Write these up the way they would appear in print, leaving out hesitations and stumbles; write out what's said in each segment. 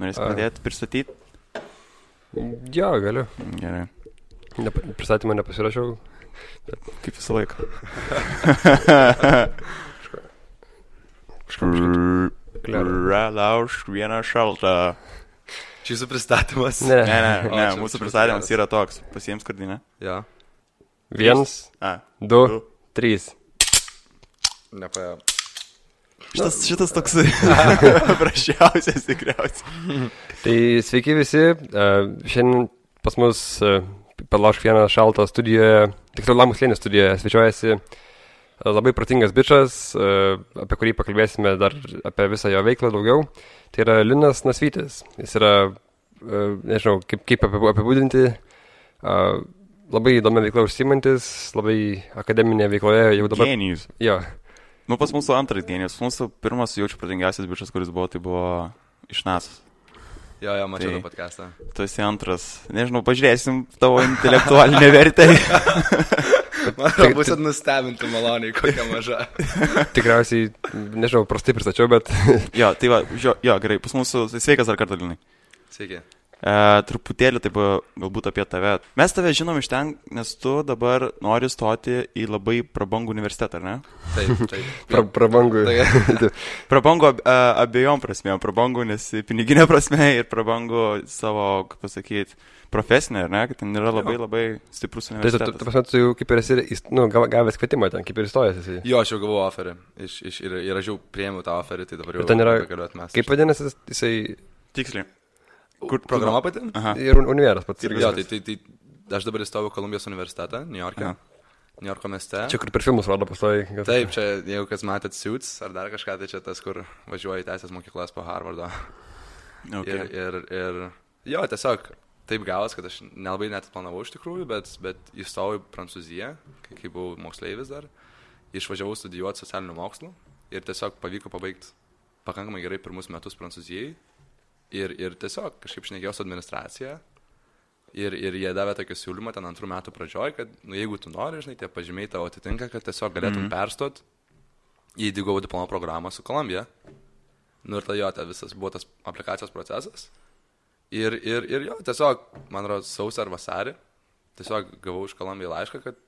Norėsi pradėti pristatyti? Jo, galiu. Gerai. Pristatymą nepasirašiau. Kaip visą laiką. Laužk vieną šaltą. Čia jūsų pristatymas? Ne, mūsų pristatymas yra toks. Pasiems skardinę. Jo. 1, 2, 3. Nepaėjo. Šitas toks prašiausias tikriausiai. Tai sveiki visi. Šiandien pas mus Laužk vieną šaltą studijoje, tiksliau Lamų slėnio studijoje, svečiuojasi labai protingas bičas, apie kurį pakalbėsime dar apie visą jo veiklą daugiau. Tai yra Linas Nasvytis. Jis yra, nežinau, kaip apibūdinti, labai įdomi veikla užsiimantis, labai akademinė veikloje jau dabar. Genijus. Jo. Nu, pas mūsų antras genijus. Mūsų pirmas jaučiu protingiausias bičas, kuris buvo, tai buvo iš NASA's. Jo, mačiau tą podcastą. Tu esi antras. Nežinau, pažiūrėsim tavo intelektualinę vertę. Man bus nustebinti maloniai, kokia maža. Tikriausiai, nežinau, prastai pristačiau, bet... Jo, tai va, gerai, pas mūsų, sveikas dar kartą, Linai. Sveiki. Truputėlį taip galbūt apie tave. Mes tave žinom iš ten, nes tu dabar nori stoti į labai prabangų universitetą, ar ne? Taip. Prabangų. Prabangų abiejom prasmėm. Prabangų, nes piniginė prasme ir prabangų savo, kaip pasakyti, profesinė, ar ne? Kad ten yra labai stiprus universitetas. Tai tu jau kaip ir esi, gavęs kvietimą ten, kaip ir įstojęs esi. Jo, aš jau gavau oferį. Ir aš jau priėmiau tą oferį, tai dabar jau galiu atmesti. Kaip vadinasi jisai... Tiksliai. Kur programa pati? Aha. Ir univeras pats. Jo, tai aš dabar įstojau Kolumbijos universitetą, New Yorko mieste. Čia kur per filmus rodo pastoji. Taip, čia jeigu kas matėt Suits ar dar kažką, tai čia tas, kur važiuoja į teisės mokyklas po Harvardo. Okay. Ir jo, tiesiog taip gavos, kad aš nelabai net planavau iš tikrųjų, bet įstojau į Prancūziją, kai buvau moksleivis dar, išvažiavau studijuoti socialinių mokslų ir tiesiog pavyko pabaigti pakankamai gerai pirmus metus Prancūzijai. Ir tiesiog kažkaip šnekėjau su administracija ir jie davė tokį siūlymą ten 2 metų pradžioj, kad jeigu tu nori, žinai, tie pažymiai tavo atitinka, kad tiesiog galėtum perstot į DIGO diplomo programą su Kolumbija. Nu ir tai visas buvo tas aplikacijos procesas. Ir jo, tiesiog, man rodos, sausį ar vasarį, tiesiog gavau iš Kolumbiją laišką, kad,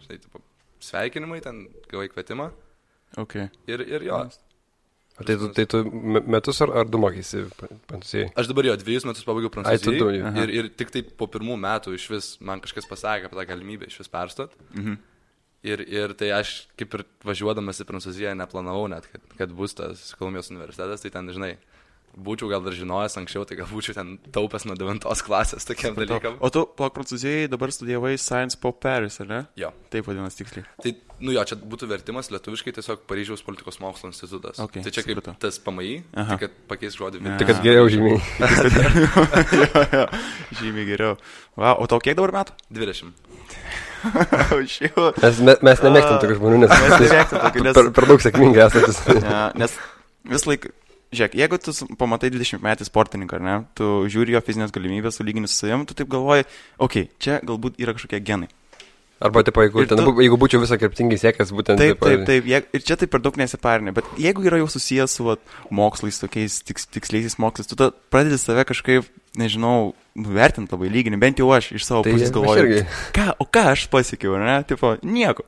žinai, sveikinimai, ten gavai kvietimą. Okay. Ir jo. Tai tu metus ar 2 mokysi Prancūzijai? Aš dabar 2 metus pabaigiau Prancūzijai ir tik tai po 1 metų iš vis man kažkas pasakė apie tą galimybę iš vis perstot. Ir tai aš kaip ir važiuodamas į Prancūziją neplanavau net, kad bus tas Kolumbijos universitetas, tai ten, žinai, būčiau gal dar žinojęs anksčiau, tai gal būčiau ten taupęs nuo 9 klasės tokiam dalykam. O tu Prancūzijai dabar studijavai Sciences Po Paris, ar ne? Jo. Taip vadinasi tiksliai. Tai, čia būtų vertimas lietuviškai tiesiog Paryžiaus politikos mokslo institutas. Okay, tai čia kaip tas PMI, tai kad pakeis žodį. Tai kad geriau žymiai. jo, žymiai geriau. Wow, o tau kiek dabar metų? 20. Mes nemėgstam tokių žmonių, nes per daug sėkmingai esantis. Nes vis laik... Žiūrėk, jeigu tu pamatai 20 metį sportininką, ar ne, tu žiūri jo fizinės galimybės, sulygini su savim, tu taip galvoji, čia galbūt yra kažkokie genai. Arba, jeigu būčiau visą kryptingai siekęs, būtent taip. Ir čia taip per daug nesiparinė, bet jeigu yra jau susijęs su mokslais, tokiais tiksliaisiais mokslais, tu pradedi save kažkaip, nežinau, nuvertinti labai lyginį, bent jau aš iš savo pusės galvoju, ką aš pasiekiau, ar ne, nieko.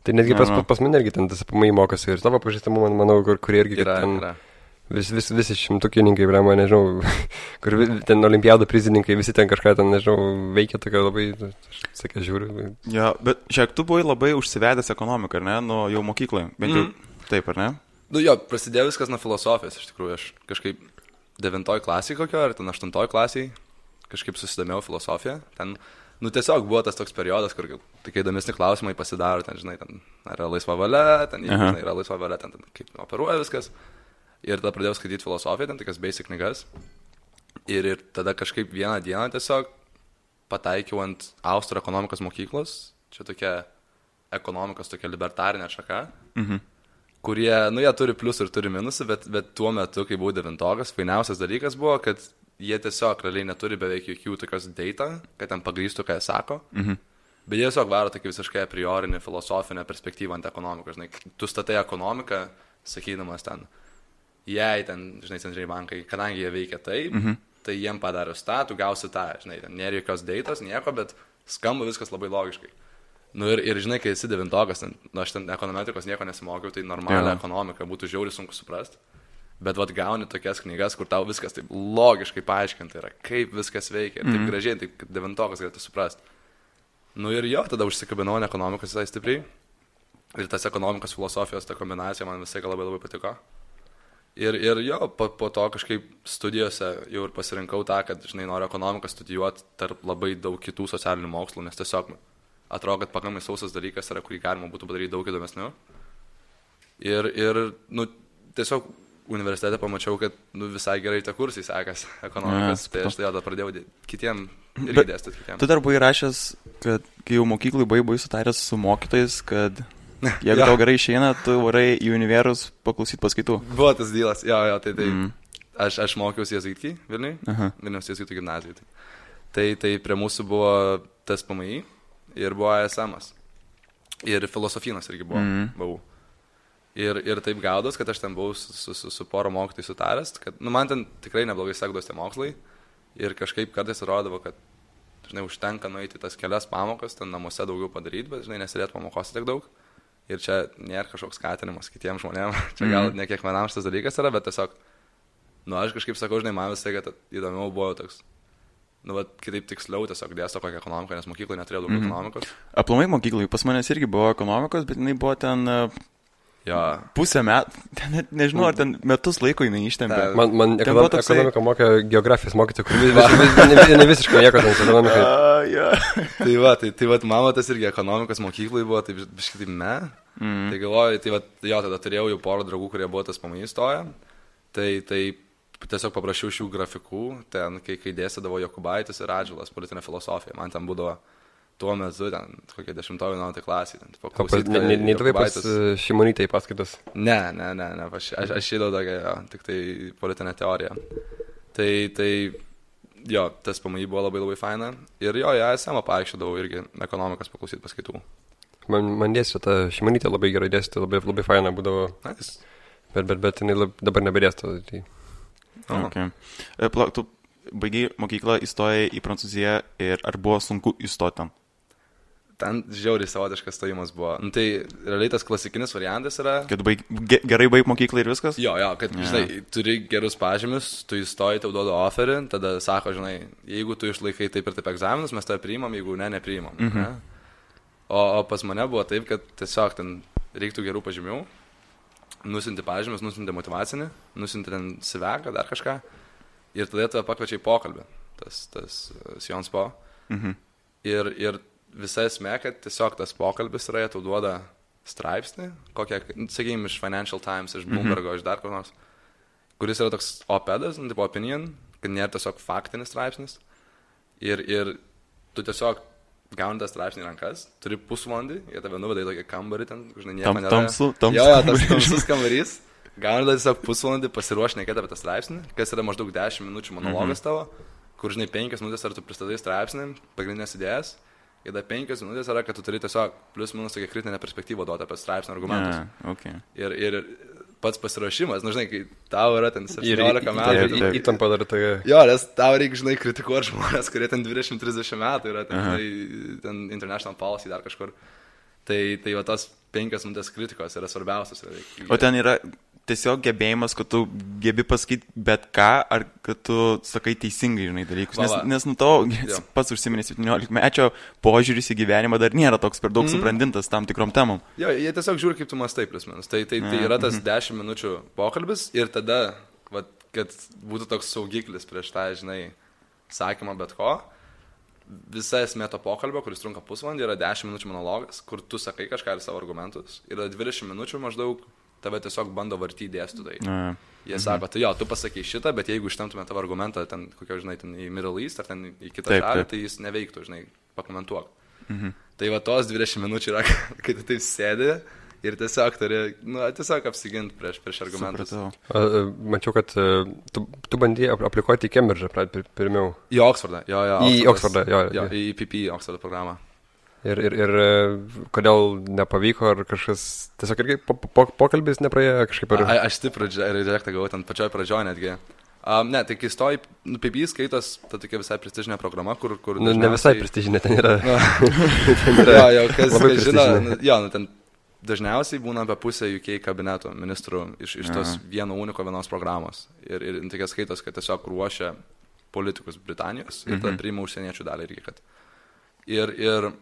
Tai netgi pas mane irgi ten tas apamai mokosi ir tavo pažįstamų, manau, kurie irgi yra. Visi šimtukininkai, man nežinau, kur ten olimpiadų prizininkai, visi ten kažką ten, nežinau, veikia tokia labai, sakė, žiūriu. Jo, bet šiek tu buvai labai užsivedęs ekonomiką, ar ne, nuo jau mokykloje, bent jau taip, ar ne? Prasidėjo viskas nuo filosofijos, iš tikrųjų, aš kažkaip 9 klasėje kokio, ar ten 8 klasėje kažkaip susidomėjau filosofiją, ten, tiesiog buvo tas toks periodas, kur tokie įdomesni klausimai pasidaro, ten, žinai, ten yra laisva valia, ten, žinai, yra laisva valia, ten kaip operuoja viskas. Ir tada pradėjau skaityti filosofiją, ten tokias basic knygas. Ir tada kažkaip vieną dieną tiesiog pataikiau ant Austrų ekonomikos mokyklos. Čia tokia ekonomikos, tokia libertarinė šaka. Kurie, jie turi pliusų ir turi minusų, bet tuo metu, kai buvau 9-okas, fainiausias dalykas buvo, kad jie tiesiog realiai neturi beveik jokių tokios data, kad ten pagrįstų, ką jie sako. Bet jie tiesiog varo tokį visiškai a priorinį filosofinę perspektyvą ant ekonomikos. Žinai, tu statai ekonomiką, sakydamas ten, jei ten, žinai, centriniai bankai, kadangi jie veikia taip, tai jiem padarius tą, tu gausi tą, žinai, ten nėra jokios deitos, nieko, bet skamba viskas labai logiškai. Nu ir žinai, kai esi devintokas, aš ten ekonometrikos nieko nesimokiau, tai normalią ekonomiką būtų žiauriai sunku suprasti. Bet vat gauni tokias knygas, kur tau viskas taip logiškai paaiškinta yra, kaip viskas veikia, taip gražiai, taip kad devintokas galėtų suprasti. Nu ir jo, tada užsikabinau ant ekonomikos visai stipriai. Ir tas ekonomikos filosofijos, ta kombinacija man visai labai labai patiko. Ir jo, po to kažkaip studijose jau ir pasirinkau tą, kad, žinai, noriu ekonomiką studijuoti tarp labai daug kitų socialinių mokslų, nes tiesiog atrodo, kad pakankamai sausas dalykas yra, kurį galima būtų padaryti daug įdomesnių. Ir nu, tiesiog universitete pamačiau, kad visai gerai tie kursai sekas ekonomikos, tai aš tai tada pradėjau kitiem irgi dėstyti kitiem. Tu dar buvai rašęs, kad kai jau mokyklai buvai sutaręs su mokytojais, kad jeigu tau gerai išeina, tu varai į univerus paklausyti paskaitų. Buvo tas dylas, jo, tai aš mokiausi Jėzuitkį Vilniui, Vilniaus Jėzuitų gimnazijai. Tai prie mūsų buvo tas PMI ir buvo ASM'as. Ir filosofinas irgi buvau. Ir taip gaudos, kad aš ten buvau su poro mokytojai sutaręs, kad man ten tikrai neblogai sekdos tie mokslai ir kažkaip kartais rodavo, kad, žinai, užtenka nueiti tas kelias pamokas, ten namuose daugiau padaryti, bet, žinai, nesėdėti pamokose tiek daug. Ir čia nėra kažkoks skatinimas kitiems žmonėms, čia gal ne kiekvienam šitas dalykas yra, bet tiesiog, aš kažkaip sakau, žinai, man visai, kad įdomiau buvo toks, kitaip tiksliau tiesiog dėsto kokią ekonomiką, nes mokyklai neturėjo daug ekonomikos. Aplamai mokyklai, pas manęs irgi buvo ekonomikos, bet jinai buvo ten pusę metų, net nežinau, ar ten metus laiko jinai ištempė. Man ekonomika mokė geografijos mokyti, kur ne visiškai nieko ten ekonomikai. Tai mama tas irgi ekonomikos mokyklai buvo, tai biškai taip Tai galvoju, tada turėjau jau porą draugų, kurie buvo tas PMI stoję, tai tiesiog paprašiau šių grafikų, ten, kai dėstydavo Jokubaitis ir Radžilas, politinė filosofija, man ten būdavo tuo metu, ten, kokie 10-11 klasį. Neįdavai pas Šimonytę į paskaitas? Ne, aš įdau tokia, tik tai politinė teorija. Tai jo, tas PMI buvo labai labai faina. Ir jo, ASM paaiškydavau irgi ekonomikos paklausyti paskaitų. Man dėstė, ta Šimonytė labai gerai dėstė, labai faina būdavo. Bet jinai dabar nebedėsto. Tu baigiai mokyklą, įstojai į Prancūziją ir ar buvo sunku įstoti ten? Ten žiauriai savotiškas stojimas buvo. Tai realiai tas klasikinis variantas yra... Kad gerai baig mokyklą ir viskas? Jo, kad, žinai, turi gerus pažymius, tu įstoji, tau duoda offerį, tada sako, žinai, jeigu tu išlaikai taip ir taip egzaminus, mes tave priimam, jeigu nepriimam. Ne? O pas mane buvo taip, kad tiesiog ten reiktų gerų pažymių, nusinti pažymius, nusinti motyvacinį, nusinti ten siveką, dar kažką, ir tada tave pakviečia į pokalbį, tas Sciences Po. Ir visa esmė, kad tiesiog tas pokalbis yra, tau duoda straipsnį, kokią, sakykime, iš Financial Times, iš Bloombergo, iš dar kur nors, kuris yra toks op-edas, tipo opinion, kad nėra tiesiog faktinis straipsnis. Ir tu tiesiog gauni tą straipsnį į rankas, turi pusvalandį, jie tave nuveda į tokį kambarį, ten, žinai, nieko nėra. Tamsus tamsus kambarys. Gauni tada tiesiog pusvalandį pasiruošti nekėti apie tą straipsnį, kas yra maždaug 10 minučių monologas tavo, kur, žinai, 5 minutės ar tu pristatai straipsnį, pagrindinės idėjas. Ir dar 5 minutės yra, kad tu turi tiesiog plius minus tokią kritinę perspektyvą duoti apie straipsnio argumentus. Ir pats pasiruošimas, žinai, kai tau yra ten 17 metų. Įtampa dar tokia. Jo, nes tau reikia, žinai, kritikuoti žmonės, kurie ten 20-30 metų yra, ten International Policy dar kažkur. Tai va tos 5 minutės kritikos yra svarbiausias. O ten yra tiesiog gebėjimas, kad tu gebi pasakyti bet ką, ar kad tu sakai teisingai, žinai, dalykus. Nes nu tavo pats užsiminė 17-mečio požiūris į gyvenimą dar nėra toks per daug subrandintas tam tikrom temom. Jo, jie tiesiog žiūri, kaip tu mąstai plius minus. Tai yra tas 10 minučių pokalbis ir tada, kad būtų toks saugiklis prieš tą, žinai, sakymą bet ko. Visa esmė to pokalbio, kuris trunka pusvalandį, yra 10 minučių monologas, kur tu sakai kažką ir savo argumentus. Yra 20 minučių maždaug tave tiesiog bando vartyti dėstytojai. Jie sako, tai jo, tu pasakai šitą, bet jeigu ištemtume tavo argumentą ten, kokio, žinai, ten į Middle East ar ten į kitą šalį, tai jis neveiktų, žinai, pakomentuok. Tai va tos 20 minučių yra, kai tu taip sėdi ir tiesiog turi, tiesiog apsiginti prieš argumentus. Mačiau, kad tu bandėjai aplikuoti į Cambridge'ą pirmiau. Į Oxfordą, jo. Į Oxfordą, jo. Į PP Oxfordo programą. Ir kodėl nepavyko, ar kažkas, tiesiog irgi pokalbis nepraėjo kažkaip ar... Aš stiprų rejektą gavau ten pačioj pradžioj netgi. Ne, tai kai stoji, PB skaitos, ta tokia visai prestižinė programa, kur dažniausiai... Ne visai prestižinė, ten yra. Jo, kas žino, ten dažniausiai būna apie pusę UK kabineto ministrų iš tos vienos programos. Ir tokia skaitos, kad tiesiog ruošia politikus Britanijos ir tada priima užsieniečių dalį irgi, kad... Ir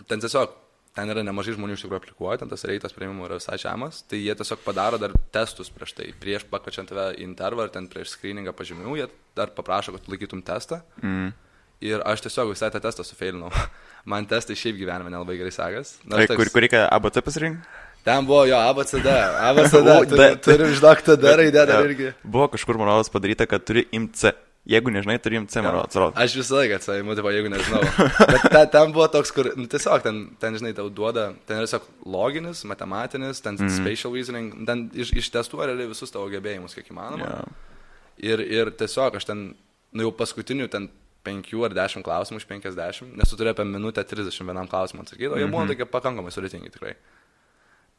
ten tiesiog, ten yra nemažai žmonių iš tikrųjų aplikuoja, ten tas reitas priimimo yra visai žemas, tai jie tiesiog padaro dar testus prieš tai, prieš pakvačiant tave į intervą, ar ten prieš screeningą pažymių, jie dar paprašo, kad laikytum testą. Ir aš tiesiog visai tą testą sufeilinau. Man testai šiaip gyvenime nelabai gerai sekas. Kur reikia ABC pasirinkti? Ten buvo jo ABCD, turi žinok tada raidę dar irgi. Buvo kažkur, man padaryta, kad turi imti C. Jeigu nežinai, turi imti C, man atrodo. Aš visą laiką atsaimu, jeigu nežinau. Bet ten buvo toks, kur, tiesiog, ten žinai, tau duoda, ten yra tiesiog loginis, matematinis, ten spatial reasoning, ten ištestuoja realiai visus tavo gebėjimus, kiek įmanoma. Ir tiesiog aš ten, jau paskutinių ten 5 ar 10 klausimų iš 50, nes tu turi apie minutę 31 klausimą atsakyti, o jie buvo tokie pakankamai sudėtingi tikrai.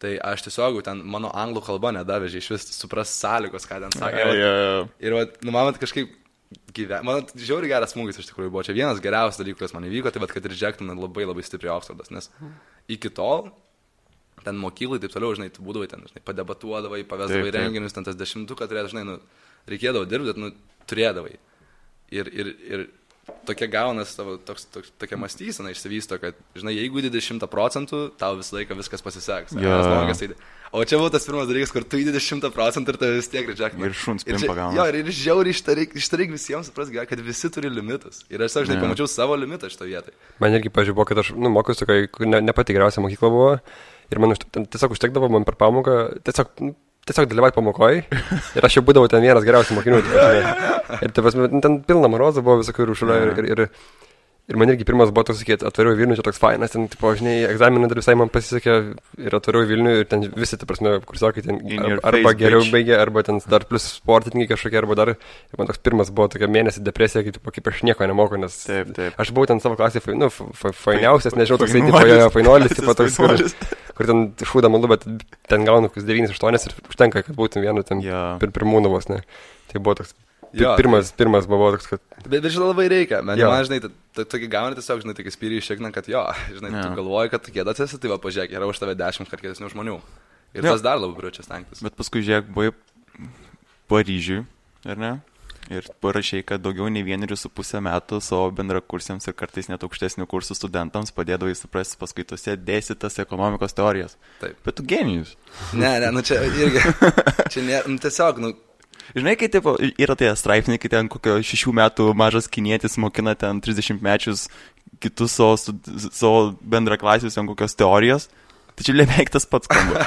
Tai aš tiesiog ten mano anglų kalba nedavežė iš vis supras sąlygos, ką ten sakė. Ir man kažkaip man žiauriai geras smūgis iš tikrųjų buvo. Čia vienas geriausias dalykas, kas man įvyko, tai kad rejectina labai labai stipriai Oksfordas, nes iki tol ten mokyklai taip toliau, žinai, tu būdavai ten, žinai, padebatuodavai, pavesdavai renginius, ten tas 10, žinai, reikėdavo dirbti, bet turėdavai. Ir tokia gaunas tavo, tokia mąstysena išsivysto, kad, žinai, jeigu 20%, tau visą laiką viskas pasiseks. O čia buvo tas pirmas dalykas, kur tu įdedi 100% ir tave vis tiek rejectina. Ir šuns pimpa gauna. Jo, ir žiauriai ištaryk visiems supras, kad visi turi limitus. Ir aš, žinai, pamačiau savo limitą šitą vietą. Man irgi pažiūrėjau, kad aš, mokiausi, kai ne pati geriausia mokykla buvo. Ir man tiesiog užtekdavo man per pamoką, tiesiog dalyvauti pamokoje. Ir aš jau būdavau ten vienas geriausių mokinių. Ir ten pilna marozų buvo visokių rūšulio. Ir man irgi pirmas buvo toks, sakyti, atvariau Vilnių, čia toks fainas, ten, tipo, žinai, egzaminą dar visai man pasisekė ir atvariau Vilnių ir ten visi, ta prasme, kursiokai ten arba geriau baigė, arba ten dar plus sportininkai kažkokie, arba dar, ir man toks pirmas buvo tokia mėnesį depresija, kaip aš nieko nemoku, nes aš buvau ten savo klasėje, fainiausias, nežinau, toksai, tipo, fainolis, tipo, toks, kur ten šūda malu, bet ten gaunu 9-8 ir užtenka, kad būtum vienu ten pirmūnų vos, ne. Tai buvo toks. Pirmas buvo toks, kad... Bet žinai, labai reikia. Man, žinai, tokį gauni tiesiog, žinai, tokį spyrį iššikna, kad žinai, tu galvoji, kad tu kėdas esi, tai va, pažiūrėk, yra už tave 10 kart kėdesnių žmonių. Ir tas dar labiau priučia stengtis. Bet paskui, žiūrėk, buvai Paryžiui, ar ne? Ir parašiai, kad daugiau nei 1,5 metų savo bendrakursiams ir kartais net aukštesnių kursų studentams padėdavai suprasti paskaitose dėstytas ekonomikos teorijas. Taip. Bet tu genijus. Ne, čia irgi. Čia tiesiog, Žinai, kai taip, yra tie straipsniai, kai ten kokio 6 metų mažas kinietis mokina ten 30 mečius kitus savo bendraklasius ten kokios teorijos, tai čia beveik tas pats skamba.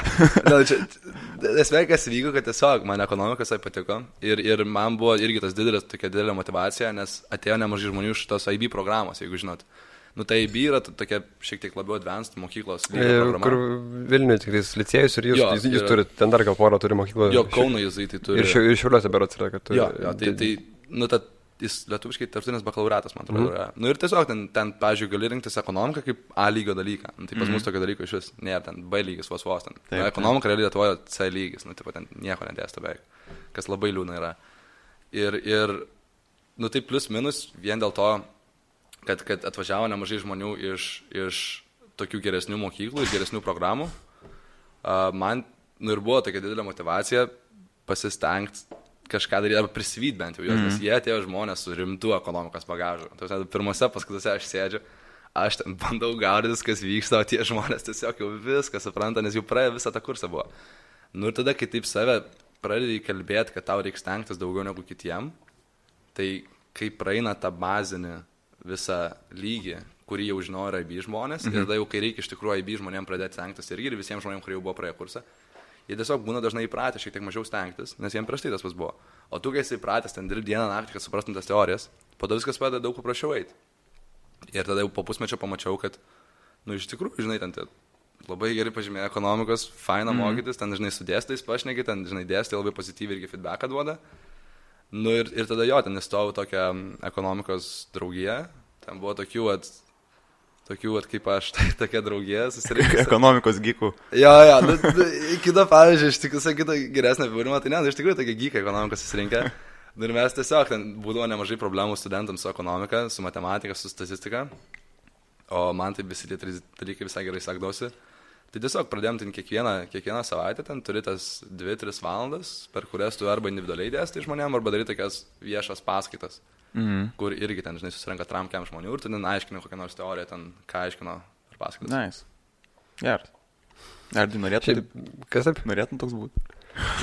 Esmė, kas vyko, kad tiesiog man ekonomikas patiko ir man buvo irgi tas tokia didelė motyvacija, nes atėjo nemažai žmonių iš tos IB programos, jeigu žinot. Tai IB yra tokia šiek tiek labiau advanced mokyklos programa. Kur Vilniuje tikrais licėjus ir jūs turite, ten dar gal porą turi mokyklą. Jo, Kauno jėzai tai turi. Ir Šiauliuose berods yra, kad turi. Tai jis lietuviškai tarptautinis bakalauriatas, man atrodo, yra. Ir tiesiog ten, pavyzdžiui, gali rinktis ekonomiką kaip A lygio dalyką. Tai pas mus tokio dalyko iš vis nėra, ten B lygis vos ten. Ekonomika realiai Lietuvoje C lygis, ten nieko nedėsta beveik, kas labai liūdna yra. Ir tai plus minus vien dėl to, kad atvažiavo nemažai žmonių iš tokių geresnių mokyklų, iš geresnių programų. Man ir buvo tokia didelė motyvacija pasistengti kažką daryti, arba prisivyti bent jau juos, nes jie atėjo žmonės su rimtu ekonomikos bagažu. Pirmose paskaitose aš sėdžiu, aš ten bandau gaudytis, kas vyksta, o tie žmonės tiesiog jau viską supranta, nes jau praėjo visą tą kursą buvo. Ir tada, kai taip save pradedi kalbėti, kad tau reikia stengtis daugiau negu kitiem, tai kai praeina tą bazinį visą lygį, kurį jau žinojo IB žmonės, ir tada jau, kai reikia iš tikrųjų IB žmonėms pradėti stengtis irgi ir visiems žmonėms, kurie jau buvo praėję kursą, jie tiesiog būna dažnai įpratę šiek tiek mažiau stengtis, nes jiems prieš tai tas pas buvo. O tu, kai esi įpratęs ten dirbti dieną naktį, kad suprastum tas teorijas, po to viskas padeda daug paprasčiau eiti. Ir tada jau po pusmečio pamačiau, kad, iš tikrųjų, žinai, ten labai gerai pažymėjo ekonomikos, faina mokytis, ten, žinai, su dėstytojais pašneki, ten, žinai, dėstytojai labai pozityviai irgi feedbacką duoda. Ir tada ten įstojau tokią ekonomikos draugiją, ten buvo tokių, tokių, kaip aš, tokia draugė susirinkusi. Ekonomikos gykų. Jo, kita pavyzdžiui, iš tikrųjų, kita geresnė apibūdinimą, tai ne, iš tikrųjų tokie gykai ekonomikos susirinkę. Ir mes tiesiog, ten būdavo nemažai problemų studentams su ekonomika, su matematika, su statistika. O man tai visi tie trys dalykai visai gerai sekdavosi. Tai tiesiog pradėjom ten kiekvieną savaitę, ten turi tas 2-3 valandas, per kurias tu arba individualiai dėstai žmonėm, arba darai tokias viešas paskaitas. Kur irgi ten, žinai, susirenka tramkiam žmonių ir tu ten aiškini kokią nors teoriją, ten ką aiškino ar paskaitas. Nice. Geras. Ar tu norėtum? Kas taip? Norėtum toks būti?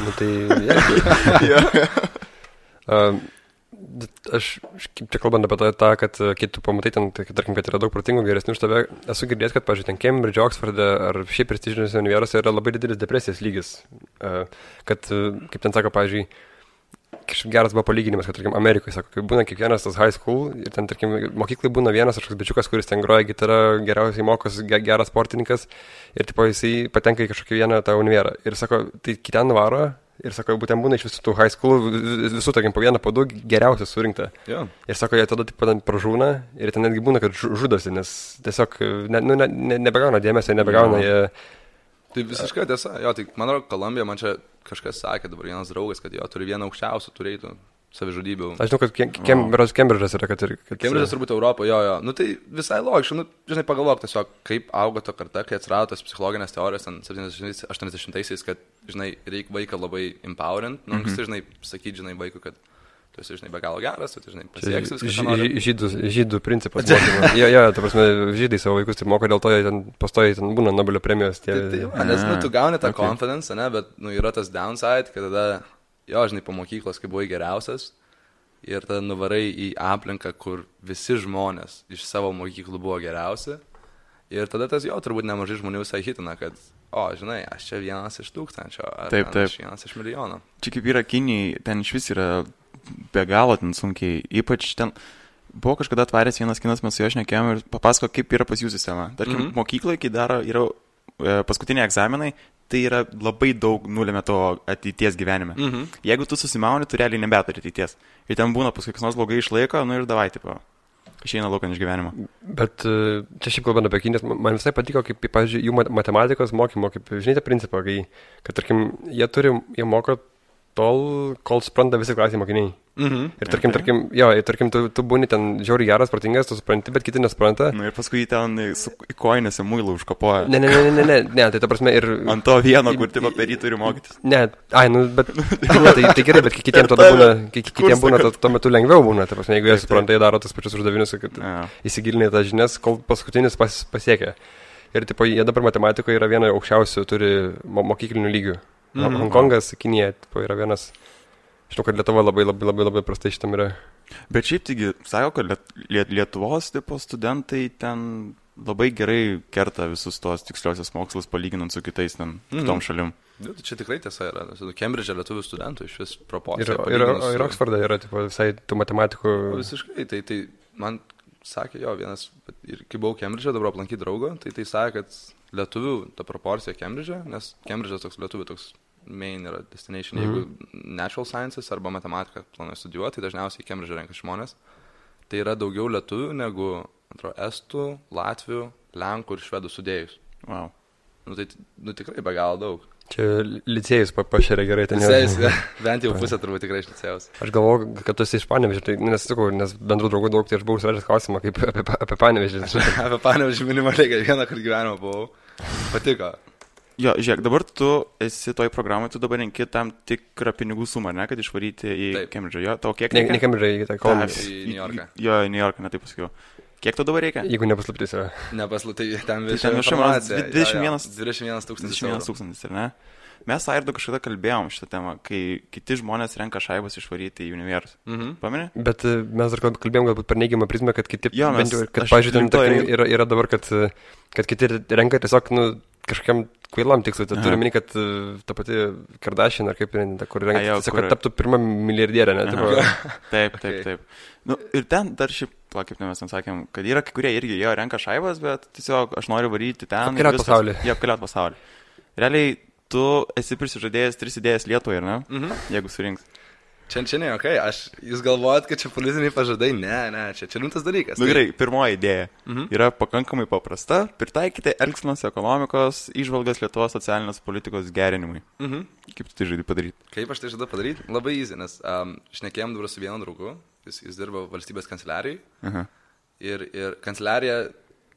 Nu tai, aš, kaip čia kalbant apie tą, kad kai tu pamatai ten, tarkim, kad yra daug protingų geresnių už tave, esu girdėjęs, kad, pavyzdžiui, ten Cambridge, Oxforde ar šiaip prestižiniuose universitetuose yra labai didelis depresijos lygis. Kad, kaip ten sako, pavyzdžiui, kažkaip geras buvo palyginimas, kad, tarkim, Amerikoje, sako, kai būna kiekvienas tas high school ir ten, tarkim, mokyklai būna vienas kažkoks bičiukas, kuris ten groja gitarą, geriausiai mokosi, geras sportininkas ir, tipo, jisai patenka į kažkokį vieną tą univerą. Ir, sako, tai kiten varo ir, sako, būtent būna iš visų tų high school, visų, tarkim, po vieną, po du geriausias surinkta. Yeah. Ir, sako, jie tada, tipo, pražūna ir ten netgi būna, kad žudosi, nes tiesiog nebegauna dėmesio, nebegauna jie... Tai visiškai tiesa. Jo, tai man atrodo, Kolumbija, man čia kažkas sakė, dabar vienas draugas, kad jo turi vieną aukščiausių turėtų savižudybių. Aš žinau, kad Cambridge'as yra, kad ir... Cambridge'as turbūt Europoje, jo. Nu tai visai logiška, nu, žinai, pagalvok tiesiog, kaip augo ta karta, kai atsirado tas psichologinės teorijos 70-80-aisiais, kad, žinai, reikia vaiką labai empowerint, nu, žinai, sakyti, žinai, vaikui, kad tu esi, žinai, be galo geras, tu, žinai, pasieksi viską. Žydų principas. Jo, ta prasme, žydai savo vaikus taip moko, dėl to jie ten pastoja, ten būna Nobelio premijos. Nes, nu, tu gauni tą confidence, ne, bet, nu, yra tas downside, kad tada, jo, žinai, po mokyklos, kai buvai geriausias, ir tada nuvarai į aplinką, kur visi žmonės iš savo mokyklų buvo geriausi, ir tada tas, jo, turbūt nemažai žmonių visai hitina, kad, o, žinai, aš čia vienas iš 1000, ar aš vienas iš milijono. Čia kaip yra Kinijai, ten iš vis yra be galo ten sunkiai, ypač ten buvo kažkada atvaręs vienas kinas, mes su jo šnekėjom ir papasako, kaip yra pas jų sistema. Tarkim, mokykloje, kai yra paskutiniai egzaminai, tai yra labai daug nulėmė to ateities gyvenime. Jeigu tu susimauni, tu realiai nebeturi ateities. Ir ten būna paskui kas nors blogai išlaiko, nu ir davai, tipo, išeina laukan iš gyvenimo. Bet čia šiaip kalbant apie Kinijas, man visai patiko, kaip, pavyzdžiui, jų matematikos mokymo, kaip, žinai, tą principą, kad, tarkim, jie moko tol, kol supranta visi klasėje mokiniai. Ir tarkim, tu būni ten žiauriai geras, protingas, tu supranti, bet kiti nesupranta. Nu ir paskui ten į koinėse muilų užkapoja. Ne, tai ta prasme ir... Ant to vieno, kur tipo per jį turi mokytis. Ne, bet... tai gerai, bet kitiems tada būna, kitiems būna tuo metu lengviau būna. Ta prasme, jeigu jie supranta, jie daro tas pačius uždavinius, kad įsigilinė tas žinias, kol paskutinis pasiekia. Ir tipo, jie dabar matematikoje yra viena aukščiausių, turi mokyklinių lygių. Hongkongas, Kinija, yra vienas, žinau, kad Lietuva labai prastai šitam yra. Bet šiaip taigi, sako, kad Lietuvos tipo studentai ten labai gerai kerta visus tos tiksliosios mokslus palyginant su kitais ten kitom šalim. Čia tikrai tiesa yra. Cambridge'e lietuvių studentų iš vis proporcija. Ir Oxforde yra tipo, visai tų matematikų. Visiškai, tai man sakė jo vienas, ir kai buvau Cambridge'e, dabar aplankyti draugo, tai sakė, kad lietuvių ta proporcija Cambridge'e, nes Cambridge'as toks lietuvių toks main yra destination, jeigu natural sciences arba matematiką planuoja studijuoti, tai dažniausiai Cambridge'e renka žmonės. Tai yra daugiau lietuvių negu, atrodo, estų, latvių, lenkų ir švedų sudėjus. Wow. Nu tai tikrai be galo daug. Čia licėjus pašėrė gerai ten. Licėjus, bent jau pusė turbūt tikrai iš licėjus. Aš galvoju, kad tu esi iš Panevėžio, nes bendrų draugų daug, tai aš buvau užsivedęs klausimą kaip apie Panevėžį. Apie Panevėžį minimaliai, kad vieną kartą gyvenimą buvau. Patiko. Jo, žiūrėk, dabar tu esi toj programai, tu dabar renki tam tikrą pinigų sumą, ne, kad išvaryti į Cambridge'ą. Jo, tau kiek reikia? Ne Cambridge'ą, į Columbia. Į New Yorką. Jo, į New Yorką, ne taip pasakiau. Kiek tu dabar reikia? Jeigu nepaslaptis yra. Nepaslaptis, ten informacija. 21 tūkstantis, ar ne? Mes Airdu kažkada kalbėjom šitą temą, kai kiti žmonės renka šaibas išvaryti į universus. Pameni? Bet mes dar kalbėjom galbūt per neigiamą prizmę, kad kiti, kad, pažiūrėjau, yra dabar, kad kiti renka tiesiog, kažkokiam kvailam tikslui, tai turiu meni, kad ta pati Kardashian ar kaip, kur renka, tiesiog, kad taptų pirmą milijardierę, ne? Taip. Nu, ir ten dar šiaip, kaip mes ten sakėm, kad yra kai kurie irgi jo renka šaibas, bet tiesiog aš noriu varyti ten. Apkeliaut pasaulį. Jie apkeliaut pasaulį. Realiai, tu esi prisižadėjęs 3 idėjas Lietuvoje, ne? Jeigu surinks. Čia ne, okei, jūs galvojat, kad čia politiniai pažadai? Ne, čia rimtas dalykas. Nu gerai, pirmoji idėja yra pakankamai paprasta. Pritaikyti elgsenos ekonomikos įžvalgas Lietuvos socialinės politikos gerinimui. Kaip tu tai žaidai padaryti? Kaip aš tai žadu padaryti? Labai easy, nes šnekėjom dabar su vienu draugu, jis dirba valstybės kanceliarijai. Ir kanceliarija,